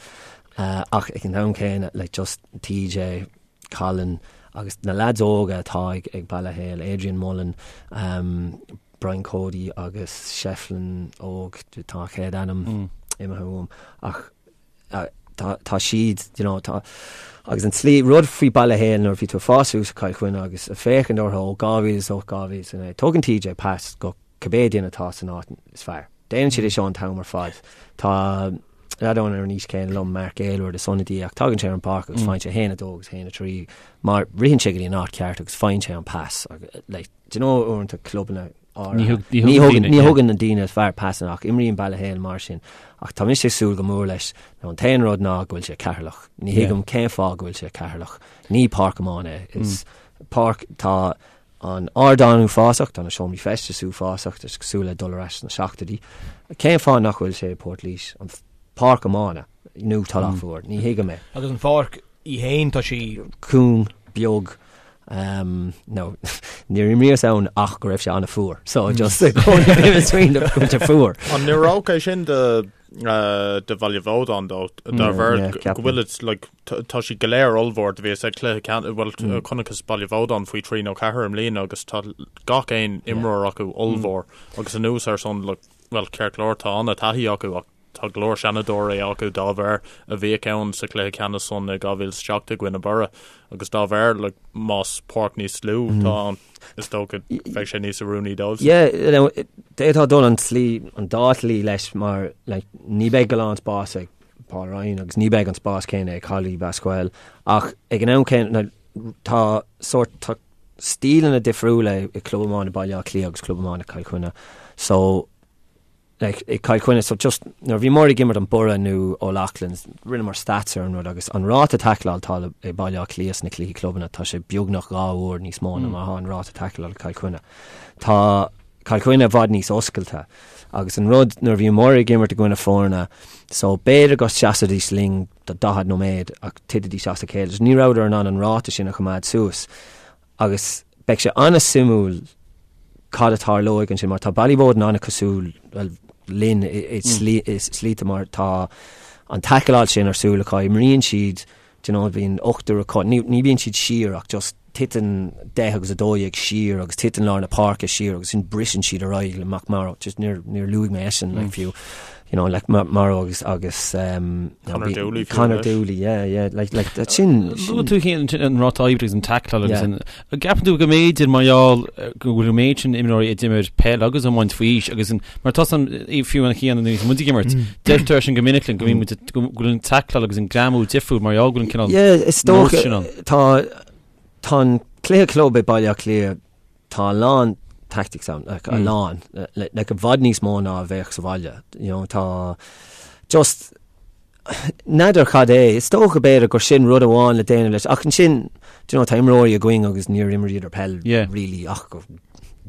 Uh, ach ag an am céanna, like, just TJ, Colin agus na leaids óga atá ag ag Baile Héil, Adrian Mullen, Brian Cody agus Shefflin óg, tá a chéad ainm imithe uaim, ach tá tá siad, you know, tá agus an tslí, rud faoi Baile Héil nuair a bhí tú ag fás suas i Cill Chainnigh agus ag féachaint orthu ó 2008, 2009, tugann TJ pas go cibé duine atá san áit is fearr. Déanann siad é seo an t-am ar fad. Tá leaid ann ar an aois céanna liom, Mark Aylward, is ionadaí ach tagann sé ar an bpáirc agus faigheann sé 1, 2 agus 1, 3 mar ritheann sé go dtí an áit ceart agus faigheann sé an pas. Like, do you know uaireanta clubanna áirithe, ní thugann ní thugann na daoine is fearr pasanna ach imríonn Baile Héil mar sin. Ach tá mise ag súil go mór leis. Now, an t-aon rud ná go bhfuil sé Ceatharlach. Ní thuigim cén fáth go bhfuil sé Ceatharlach. Ní páirc iomána é. Is páirc tá An ardán uafásach, tá na seomraí feistis uafásach, tá sé cosúil le dul ar ais sna seachtóidí. Cén fáth nach bhfuil sé i Port Laoise, an pháirc iomána, nó Tulach Mhór? Ní thuigim é. Agus an pháirc í fhéin, tá sí. cúng, beag, nó níor imríos ann ach go raibh sé an-fhuar, so just i gcónaí bím ag smaoineamh go bhfuil sé fuar. An n-oireodh é sin do do Bhaile Bhódáin dó, dá bharr go bhfuil like, tá siad go léir ollmhór do bhíos ag cluiche ceannais, bhuel chonaiceas Baile Bhódáin faoi 3 nó 4 i mbliana agus tá gach aon imreoir acu ollmhór agus anuas ar san like, bhuel ceart go leor tá an-taithí acu ach tá go leor seanadóirí acu dá bharr a bhíodh ann sa chluiche ceannais san i 2007 i gcoinne Boro agus dá bharr like, más páirc níos lú atá ann is dócha bheadh sé níos oiriúnaí dóibh. Yeah, you know, d'fhéadfá dul an tslí, an dá shlí leis mar like, ní beidh a lán spás ag Paul Ryan agus ní beidh an spás céanna ag Collie Basquel ach ag an am céanna tá sórt tá stíleanna difriúla i Club Iomána Baile Átha Cliath agus Club Iomána Cill Chainnigh so like, i Cill Chainnigh so just nuair a bhíomar ag imirt an Boro nó O'Loughlin's rinneamar stats ar an rud agus an ráta taicleáil atá i Baile Átha Cliath sna cluichí clubanna tá sé beagnach 2 uair níos mó ná mar atá an ráta taicleáil i Cill Chainnigh. Tá Cill Chainnigh i bhfad níos oscailte. Agus an rud, nuair a bhíomar ag imirt i gcoinne foirne, so b'fhéidir go seasfaidís linn do 40 nóiméad ach titfidís as a chéile. So ní rabhadar in ann an ráta sin a choimeád suas. Agus beidh sé an-suimiúil cad a tarlóidh ansin mar tá Ballyboden an-cosúil well, linn i slite mar tá an taicleáil sin ar siúl acu, imríonn siad Do you know, bíonn ochtar acu, ní, ní bíonn siad siar ach just titeann 10 agus 12 siar agus titeann lár na páirce siar agus sin briseann siad ar aghaidh le McMorrow, just níor, níor luaigh mé eisean, like, fiú. you know, like Mauro agus agus um, Conor Dooley Conor Dooley, yeah, yeah, like, like that sin. Luaigh tú féin an ráta oibre agus an tackle agus an gceapann tú go mb'fhéidir mar gheall go bhfuil an méid sin imreoirí a d'imir peil agus iomáint faoi aois agus an mar tá san fiú an chéanna nuair muid ag imirt deirtear sin go minic linn go mbíonn muid go bhfuil an tackle agus an greamú difriúil mar gheall go bhfuil an cineál Yeah, is dócha tá tá an cluiche club i Baile Átha Cliath Tá a lán tactics ann, like, a lán, like, i bhfad níos mó ná a bheadh sa bhaile, you know, tá just n'fheadar cad é, is dócha b'fhéidir gur sin rud amháin le déanamh leis, ach ansin, do you know, tá imreoirí againn agus níor imríodar peil Yeah. really ach go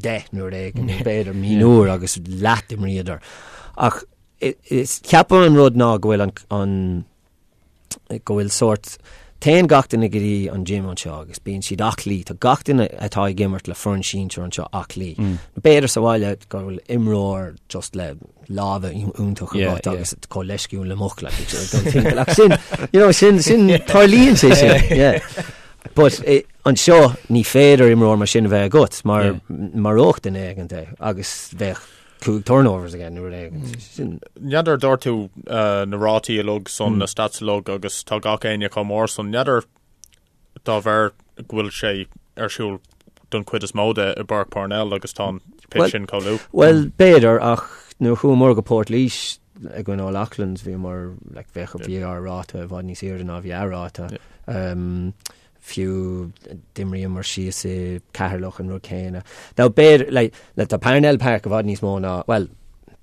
10 nuair éigin, nó b'fhéidir mionúr agus leath d'imríodar. Ach is ceapaim an rud ná go bhfuil an, an go bhfuil sórt, téann gach duine go dtí an gym anseo agus bíonn siad aclaí, tá gach duine atá ag imirt le foireann sinsir anseo aclaí. Mm. B'fhéidir sa bhaile go bhfuil imreoir just le lámha iontach agat agus chomh leisciúil le muc le ach sin you know, sin sin tarlaíonn sé sin. Yeah. But eh, anseo ní féidir imreoir mar sin a bheith agat mar yeah. maródh duine éigin é agus bheadh 5 turnovers aige nó rud éigin. Sin. N'fheadar dúirt tú na rátaí uilig san, na stats uilig agus tá gach éinne chomh mór san. N'fheadar dá bharr go bhfuil sé ar siúl don chuid is mó de i bPáirc Parnell agus tá an pitch sin chomh lú. Bhuel, b'fhéidir, ach nuair a chuamar go Port Laoise i gcoinne O'Loughlin's bhíomar, like, bheadh, bhí ár ráta i bhfad níos airde ná bhí a ráta. Fiú d'imríomar síos i Ceatharlach an rud céanna. Now b'fhéidir, like, like tá Parnell Park i bhfad níos mó ná, bhuel,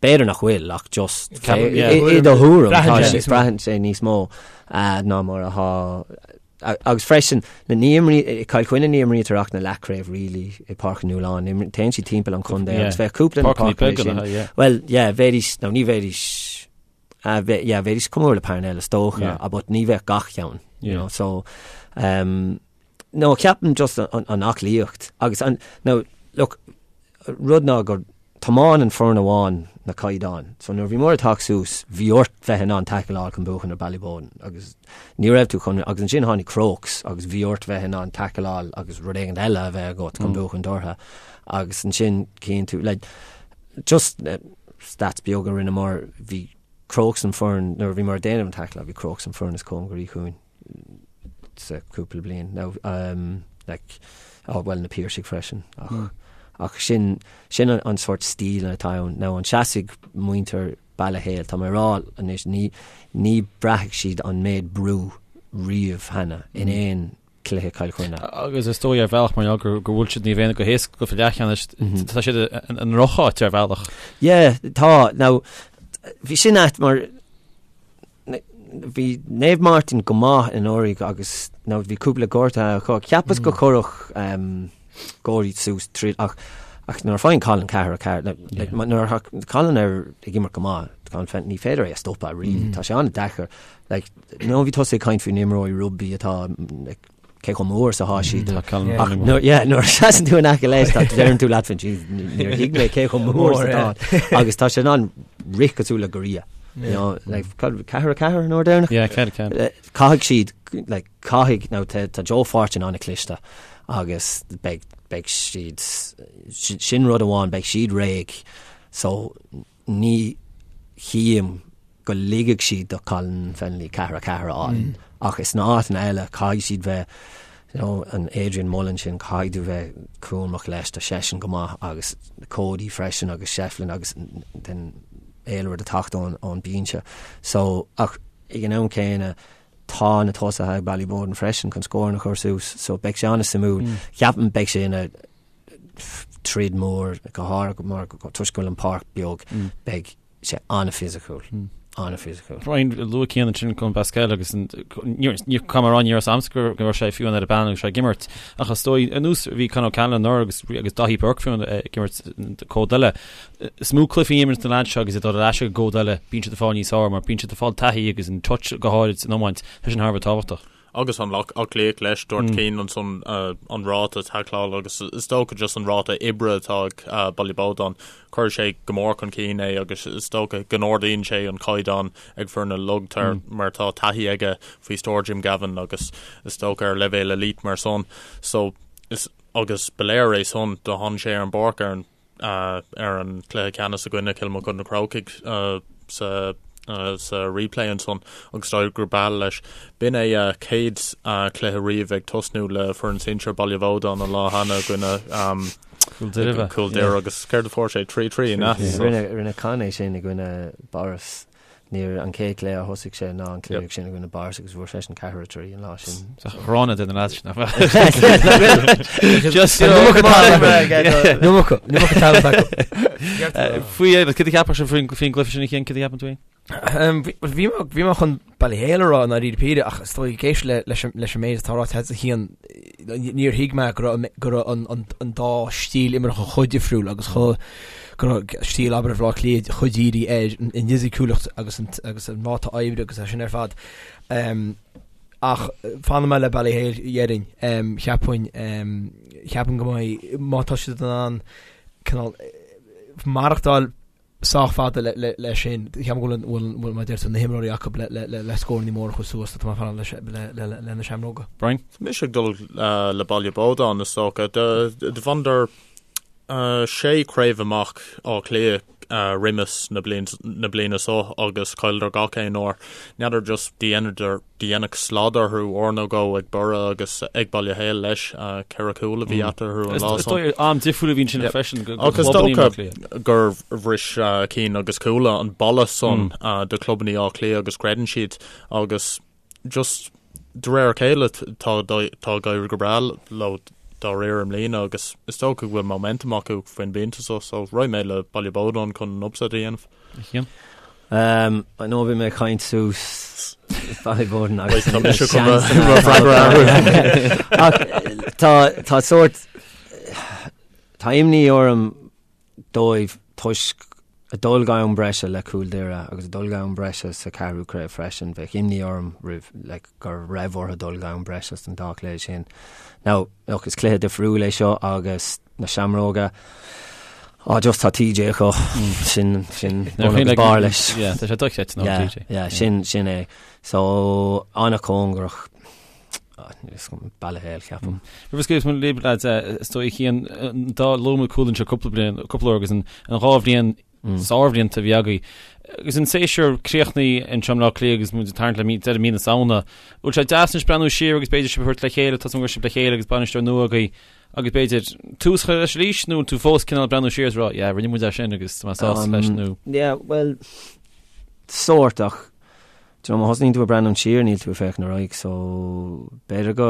b'fhéidir nach bhfuil ach just i do thuairim tá sé, braitheann sé níos mó ná mar atá agus freisin ní imrí, i Cill Chainnigh ní imrítear ach na leathchraobh really i Páirc an Nualláin, téann siad timpeall an chontae agus bheadh cúpla na páirceanna sin. Bhuel, yeah, bheidís, nó ní bheidís, Ah, bhe, yeah, bheidís chomh mór le Parnell is dócha, yeah. but ní bheadh gach ceann, you know, so, um, no, ceapaim just an, an aclaíocht agus an, no, look, rud ná gur tiomáin an foireann amháin na caighdeáin. So nuair bhí muid ag teacht suas, bhí ort bheith in ann tackleáil chun buachan ar Ballyboden agus ní raibh tú chun, agus ansin tháinig Crokes agus bhí ort bheith in ann tackleáil agus rud éigin eile a bheith agat chun mm. buachan orthu. Agus ansin cíonn tú, like, just eh, Stats beag a rinneamar, bhí Crokes an foireann, nuair a bhíomar ag déanamh an tackle, bhí Crokes an foireann is cóngaraí chugainn sa cúpla bliain. Now, um, like, oh, well, na Piarsaigh freisin, ach, mm. ach sin, sin an, an sort stíl atá ann. Now, an seasfaidh muintir Baile Héil, tá mé ag rá anois, ní, ní braithfidh siad an méid brú riamh cheana in mm. aon cluiche Cill Chainnigh. Agus is dóigh ar bhealach mar gheall go bhfuil siad Naomh Éanna go héasca go leathcheannais, tá siad i ndrocháit ar bhealach. Yeah, tá. Now, bhí sin ait mar bhí Naomh Máirtín go maith anuraidh agus now bhí cúpla gortaithe acu. Cheapas go gcuirfeadh um, Gorey suas tríd ach ach nuair a faigheann Colin 4-4 like, nuair a Colin ar ag imirt go maith, Colin Fenton, ní féidir é a stopadh really. Tá sé an-deacair. Like, nó bhí tusa ag caint faoi na imreoirí rugbaí atá like, cé chomh mór is atá siad. Tá Colin Ach Fenton nuair yeah, nuair a seasann tú in aice leis tá deireann tú leat féin "Jeez, níor thuig mé cé chomh mór is atá. Agus tá sé in ann rith cosúil le giorria. You know, like, 4-4 an uair deireanach? Yeah, 4-4. Eh, Caithfidh siad, like, caithfidh, now, tá, tá Joe Fortune an-chliste agus beidh, beidh siad, sin sin rud amháin, beidh siad réidh. So, Ní chím go ligfidh siad do Colin Fennelly 4-4 a fháil ach is sna áiteanna eile caithfidh siad bheith you know an Adrian Mullen sin caithfidh tú bheith cúramach leis tá seisean go maith agus Cody freisin agus Shefflin agus den Aylward ag teacht ón ón binse so ach ag an am céanna tá na tosaithe ag Ballyboden freisin chun scóranna a chur suas so beidh sé an-suimiúil. Ceapaim beidh sé ina troid mór go háirithe mar toisc go bhfuil an páirc beag beidh sé an-fhisiciúil an-fhisiciúil. Brian luaigh Cian ansin Colm Basquel agus ní caithfidh mé a rá ní raibh a fhios a'msa go raibh sé fiú ar an bpanel agus sé ag imirt ach is dóigh ar nós bhí Con O'Callaghan anuraidh agus agus Daithí Burke fiú ag imirt cód eile. Is mó cluichí a imríonn na lads seo agus iad ag dul ar ais ag an gcód eile bíonn siad ag fáil níos fearr mar bíonn siad ag fáil taithí agus an touch go háirid san iomáint tá sin thar a bheith tábhachtach. Agus an aclaíocht leis, dúirt Cian ansan an ráta taicleála agus is dócha just an ráta oibre atá ag Ballyboden, cuirfidh sé go mór chun cinn é agus is dócha go n-ardaíonn sé an caighdeán ag foirne uilig mar tá taithí aige faoi stiúir Jim Gavin agus is dócha ar leibhéal elite mar san. So is agus ba léir é san do tháinig sé ar an bpáirc ar an ar an cluiche ceannais i gcoinne Cill Mochuda Na Crócaigh. sa sa replay ansan agus d'éirigh go breá leis. B'in é a chéad chluiche riamh ag tosnú le foireann sinsir Baile Bhódáin an lá cheana i gcoinne Cúl Doire. Cúl Doire agus céard a fuair sé? 3-3, an ea? Rinne rinne Con é sin i gcoinne Borris. Níor an chéad chluiche a thosaigh sé ná an cluiche sin i gcoinne Borris agus fuair seisean 4-3 an lá sin. Sa ghrána de na lads sin, nach Just Faoi cad a cheapfadh sibh faoin gcluiche sin a Chian, cad a cheapann tú féin? Bhí mé chun Ballyhale a rá i ndáiríre píre ach is dóigh ag éisteacht leis an méid atá ráite agat a Chian níor thuig mé go raibh an dá stíl imeartha chomh difriúil agus chomh go raibh stíl abair Bhaile Átha Cliath chomh dírithe ar an bhfisiciúlacht agus agus an ráta oibre agus é sin ar fad. Ach fanfaidh mé le Ballyhale déarfainn. Cheapfainn cheapfainn go mbeidh má tá siad in ann cineál maireachtáil sách fada leis sin. Cheapfainn go bhfuil bhfuil mar a deir tú na himreoirí acu le scóranna móra a chur suas tá mé ag fanacht le na Seamróga. Brian? Tá mise ag dul le Baile Bódáin is dócha. Do bhaineadar sé craobh amach Áth Cliath roimis na bliana seo agus chailleadar gach aon uair. N'fheadar just do deineadh slad orthu uair nó dhó ag Borough agus ag Baile Héil leis, 4 chúl a bhí eatarthu an lá san. Is dóigh am difriúil a bhíonn sin freisin do Agus is dócha gur bhris Cian agus Cuala an balla san do chlubannaí Átha Cliath agus creideann siad agus just de réir a chéile tá tá ag éirí go breá leo dá réir i mbliana agus is dócha go bhfuil momentum acu faoin bpointe so so raghaidh mé le Baile Bódáin chun an upset a dhéanamh. Cian? I know bhí mé ag caint suas Ballyboden agus Tá mise chun mo freagra a athrú. Ach tá tá sórt tá imní orm dóibh toisc a dul go am breise le Cúl Doire agus a dul go am breise sa ceathrú craobh freisin. Bheadh imní orm roimh like, go raibh orthu dul go am breise san dá chluiche sin. Now, look, is cluiche difriúil é seo agus na Seamróga, á just tá TJ acu, sin, sin bun agus barr leis. Yeah, tá sé dochreidte ná TJ. Yeah, sin, sin é. So, an-chóngarach, Ballyhale, ceapaim. Roimh a scaoilfeas muid libh, lads, is dóigh a Chian, dá luaigh muid Cuala anseo cúpla bliain, cúpla uair agus an dhá bhliain sárbhlianta a bhí agaibh. Agus an séasúr críochnaithe anseo i mBleá Cliath agus muid ag tarraingt le deireadh mí na Samhna, bhfuil sé deas anois breathnú siar agus b'fhéidir sibh a thabhairt le chéile, tá a fhios agam go raibh sibh le chéile agus bainisteoir nua agaibh agus b'fhéidir tús a chur leis arís nó tú fós cineál breathnú siar is rá yeah rinne muid é sin agus tá mé sásta leis nó. Yeah, well, sórt ach Do you know, má thosnaíonn tú ag breathnú siar níl tú ag féachaint ar aghaidh so b'fhéidir go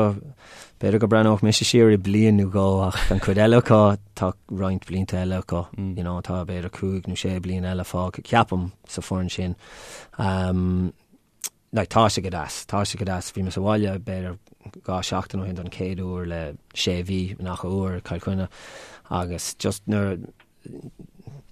b'fhéidir go breathnódh mise siar i bliain nó dhó ach an chuid eile acu tá roinnt blianta eile acu mm. you know, tá b'fhéidir cúig nó sé bliain eile fágtha ceapaim sa foireann sin. Um, like, tá sé go deas, tá sé go deas bhí mé sa bhaile b'fhéidir 2 seachtain ó shin don chéad uair le sé mhí nach uair Cill Chainnigh agus just nuair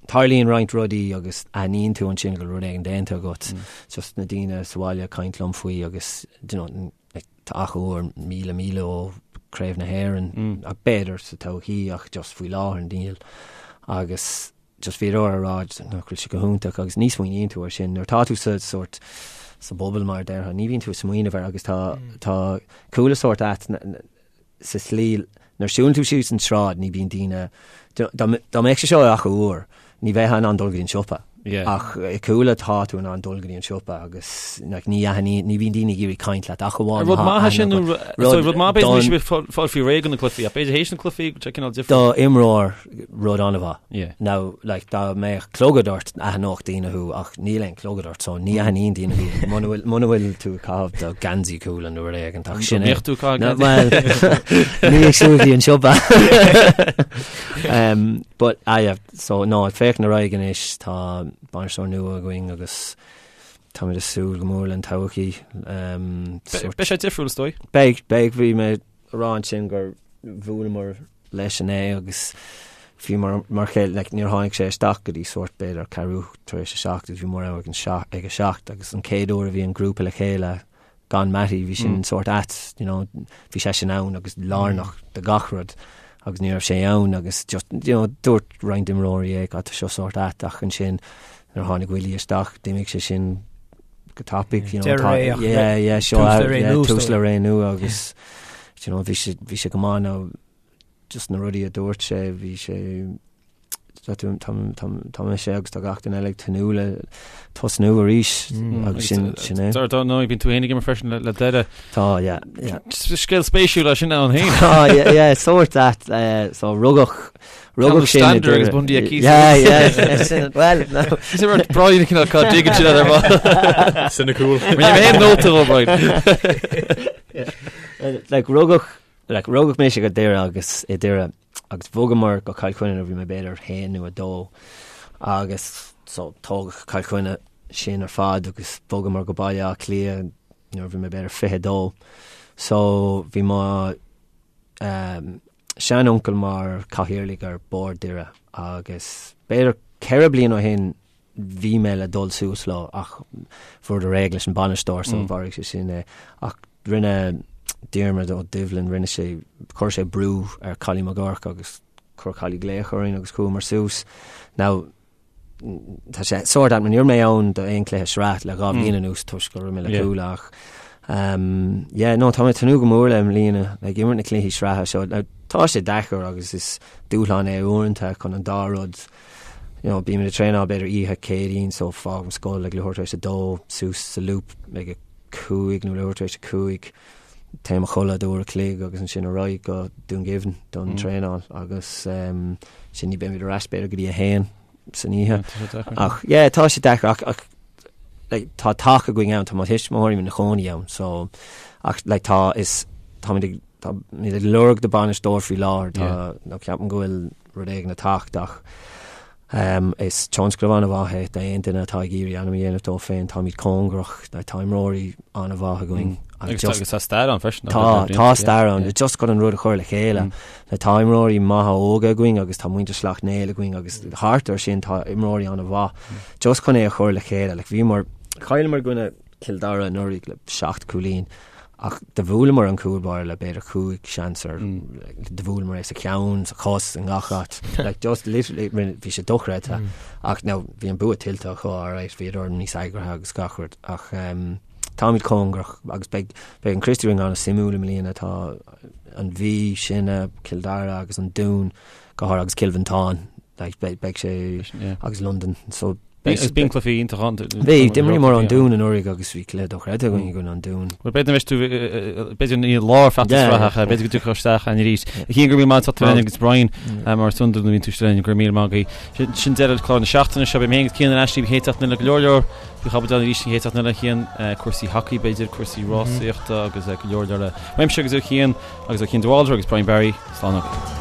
Tarlaíonn roinnt rudaí agus aithníonn tú ansin go bhfuil rud éigin déanta agat. Just na daoine sa bhaile ag caint liom faoi agus do you know, like, tá Achadh Úr míle míle ó Craobh na hÉireann ach b'fhéidir sa todhchaí ach just faoi láthair níl. Agus just bhíodar ag rá nach bhfuil sé go hiontach agus ní smaoiníonn tú air sin. Nuair atá tú sa sórt sa bubble mar a déarfá, ní bhíonn tú ag smaoineamh air agus tá tá Cuala sórt ait sa tslí nuair a siúlann tú síos an tsráid ní bíonn daoine, dá mbeadh sé seo i Achadh Úr ní bheifeá in ann dul go dtí an siopa ach i Cuala tá tú in ann dul go dtí an siopa agus like, ní aithníonn, ní bhíonn daoine ag iarraidh caint leat ach amháin Rud maith é sin nó rud maith b'fhéidir níl sibh fáil faoi réir do na cluichí ach b'fhéidir théis na cluichí go cineál difriúil. Do imreoir rud an-mhaith. Yeah. Now, like, dá mbeadh clogad ort, aithneodh daoine thú, ach níl aon clogad ort, so ní aithníonn daoine thú. Muna bhfuil, muna bhfuil tú ag caitheamh do geansaí Cuala nó rud éigin, ach sin é. An mbeadh tú ag caitheamh geansaí? Well, ní ag siúl go dtí an siopa. um, but, ah, yeah, so, no, ag féachaint ar aghaidh anois, tá bainisteoir nua againn agus táimid ag súil go mór len todhchaí. Um, sort- Beidh sé difriúil is dóigh. Beidh, beidh, bhí mé ag rá ansin gur bhuaileamar leis inné agus bhí mar mar chéile like, níor tháinig sé isteach go dtí sórt b'fhéidir ceathrú tar éis a seacht agus bhíomar ann ag an seacht ag a seacht agus an chéad uair a bhí an grúpa le chéile gan Mattie bhí sin mm. sórt ait you know, bhí sé sin ann agus lárnach do gach rud agus ní raibh sé ann agus just you know, dúirt roinnt imreoirí é tá seo sórt ait ach ansin nuair a tháinig Willie isteach d'imigh sé sin go tapaidh you know, tá, yeah, yeah, seo tús le ré nua agus you know, bhí sé bhí sé go maith nó just na rudaí a dúirt sé bhí sé Tá mise agus tá gach duine eile ag tnúth le tosnú arís agus sin sin é. Dar ndóigh bíonn tú féin ag imirt freisin le Doire. Tá, yeah, yeah. Scéal spéisiúil é sin ann féin. Tá, yeah, yeah, sórt that, so rugadh rugadh sin i Doire. Agus Bundee Aki. Yeah, yeah, sin, well, no. Is é rud Brian cineál cá dtuigeann sin ar ball. Sin cool. Rinne mé aon nóta ó Brian. Like rugadh like rugadh mise go Doire agus i Doire agus bhogamar go Cill Chainnigh nuair a bhí mé b'fhéidir haon nó a dó agus so tógadh Cill Chainnigh sinn ar fad agus bhogamar go Baile Átha Cliath nuair a bhí mé b'fhéidir 22. So bhí mo um, seanuncail mar cathaoirleach ar bord Doire agus b'fhéidir 4 bliain ó shin bhí mé le dul suas leo ach fuaireadar réidh leis an bainisteoir so mharaigh sé sin é. Ach rinne Diarmuid Ó Doibhlin, rinne sé, chuir sé brú ar Collie McGurk agus chuir Collie glaoch orainn agus chuamar suas. Now, tá sé sórt ait, ní raibh mé ann do aon cluiche sraith le 2 bhliain anuas toisc go raibh mé le Cuala ach um, yeah, no, tá mé ag tnúth go mór le i mbliana, like, imirt na cluichí sraithe seo. Now, tá sé deacair agus is dúshlán é uaireanta chun an dá rud you know, bímid ag traenáil b'fhéidir oíche Céadaoin so fágaim scoil ag leathuair tar éis a dó suas sa Loop ag a cúig nó leathuair tar éis a cúig téim a chodladh d'uair a chloig agus ansin ar aghaidh go Dún Geimhin don mm. traenáil agus um, sin ní beimid ar ais b'fhéidir go dtí a haon san oíche. Ach yeah, tá sé deacair ach, ach like, tá taca againn ann tá mo thuismitheoirí ina chónaí ann so ach like, tá is táimid ag táimid ag lorg do bainisteoir faoi láthair tá nó ceapaim go bhfuil rud éigin ag teacht ach is tionscnamh an-mhaith é d'aon duine atá ag iarraidh ainm a dhéanamh dó féin. Táimid cóngarach, tá imreoirí an-mhaith againn. Agus agus tá stair ann freisin. Tá, tá stair ann. Just chun an rud a chur le chéile. Tá imreoirí maithe óga againn agus tá muintir Sleacht Néill againn agus thart ar sin tá imreoirí an-mhaith. Just chun é a chur le chéile. Like bhíomar, chailleamar i gcoinne Cill Dara anuraidh le 7 cúilín ach do bhuaileamar an cúl báire le b'fhéidir 5 seans ar do bhuaileamar é sa cheann, sa chos, i ngach áit. Like just literally bhí sé dochreidte. Ach now bhí an bua tuillte acu alright, bhíodar níos eagraithe agus gach rud ach um, táimid cóngarach agus beidh beidh an Christy Ring an-suimiúil i mbliana tá an Mhí, sinne, Cill Dara agus an Dún go háirithe agus Cill Mhantáin like, beidh beidh sé agus Londain so Agus bíonn cluichí iontach ann. Bhí, d'imríomar an Dún anuraidh agus bhí cluiche dochreidte againn i gcoinne an Dúin. Bhuel, b'fhéidir anois tú, b'fhéidir ní lár feachtas sraithe ach b'fhéidir go dtiocfadh isteach ann arís. A Chian, go raibh míle maith agat féin agus Brian mar is iondúil nuair a bhíonn tú linn, go raibh míle maith agaibh. Sin deireadh chlár na seachtaine seo, beidh mé féin agus Cian ar ais libh an chéad seachtain eile go leor leor faoi chaibidil arís an chéad seachtain eile, Cian, cúrsaí hacaí b'fhéidir, cúrsaí rásaíochta agus go leor leor eile. Uaimse agus ó Chian agus ó Cian de Bhaldraithe agus Brian Barry, slán agaibh.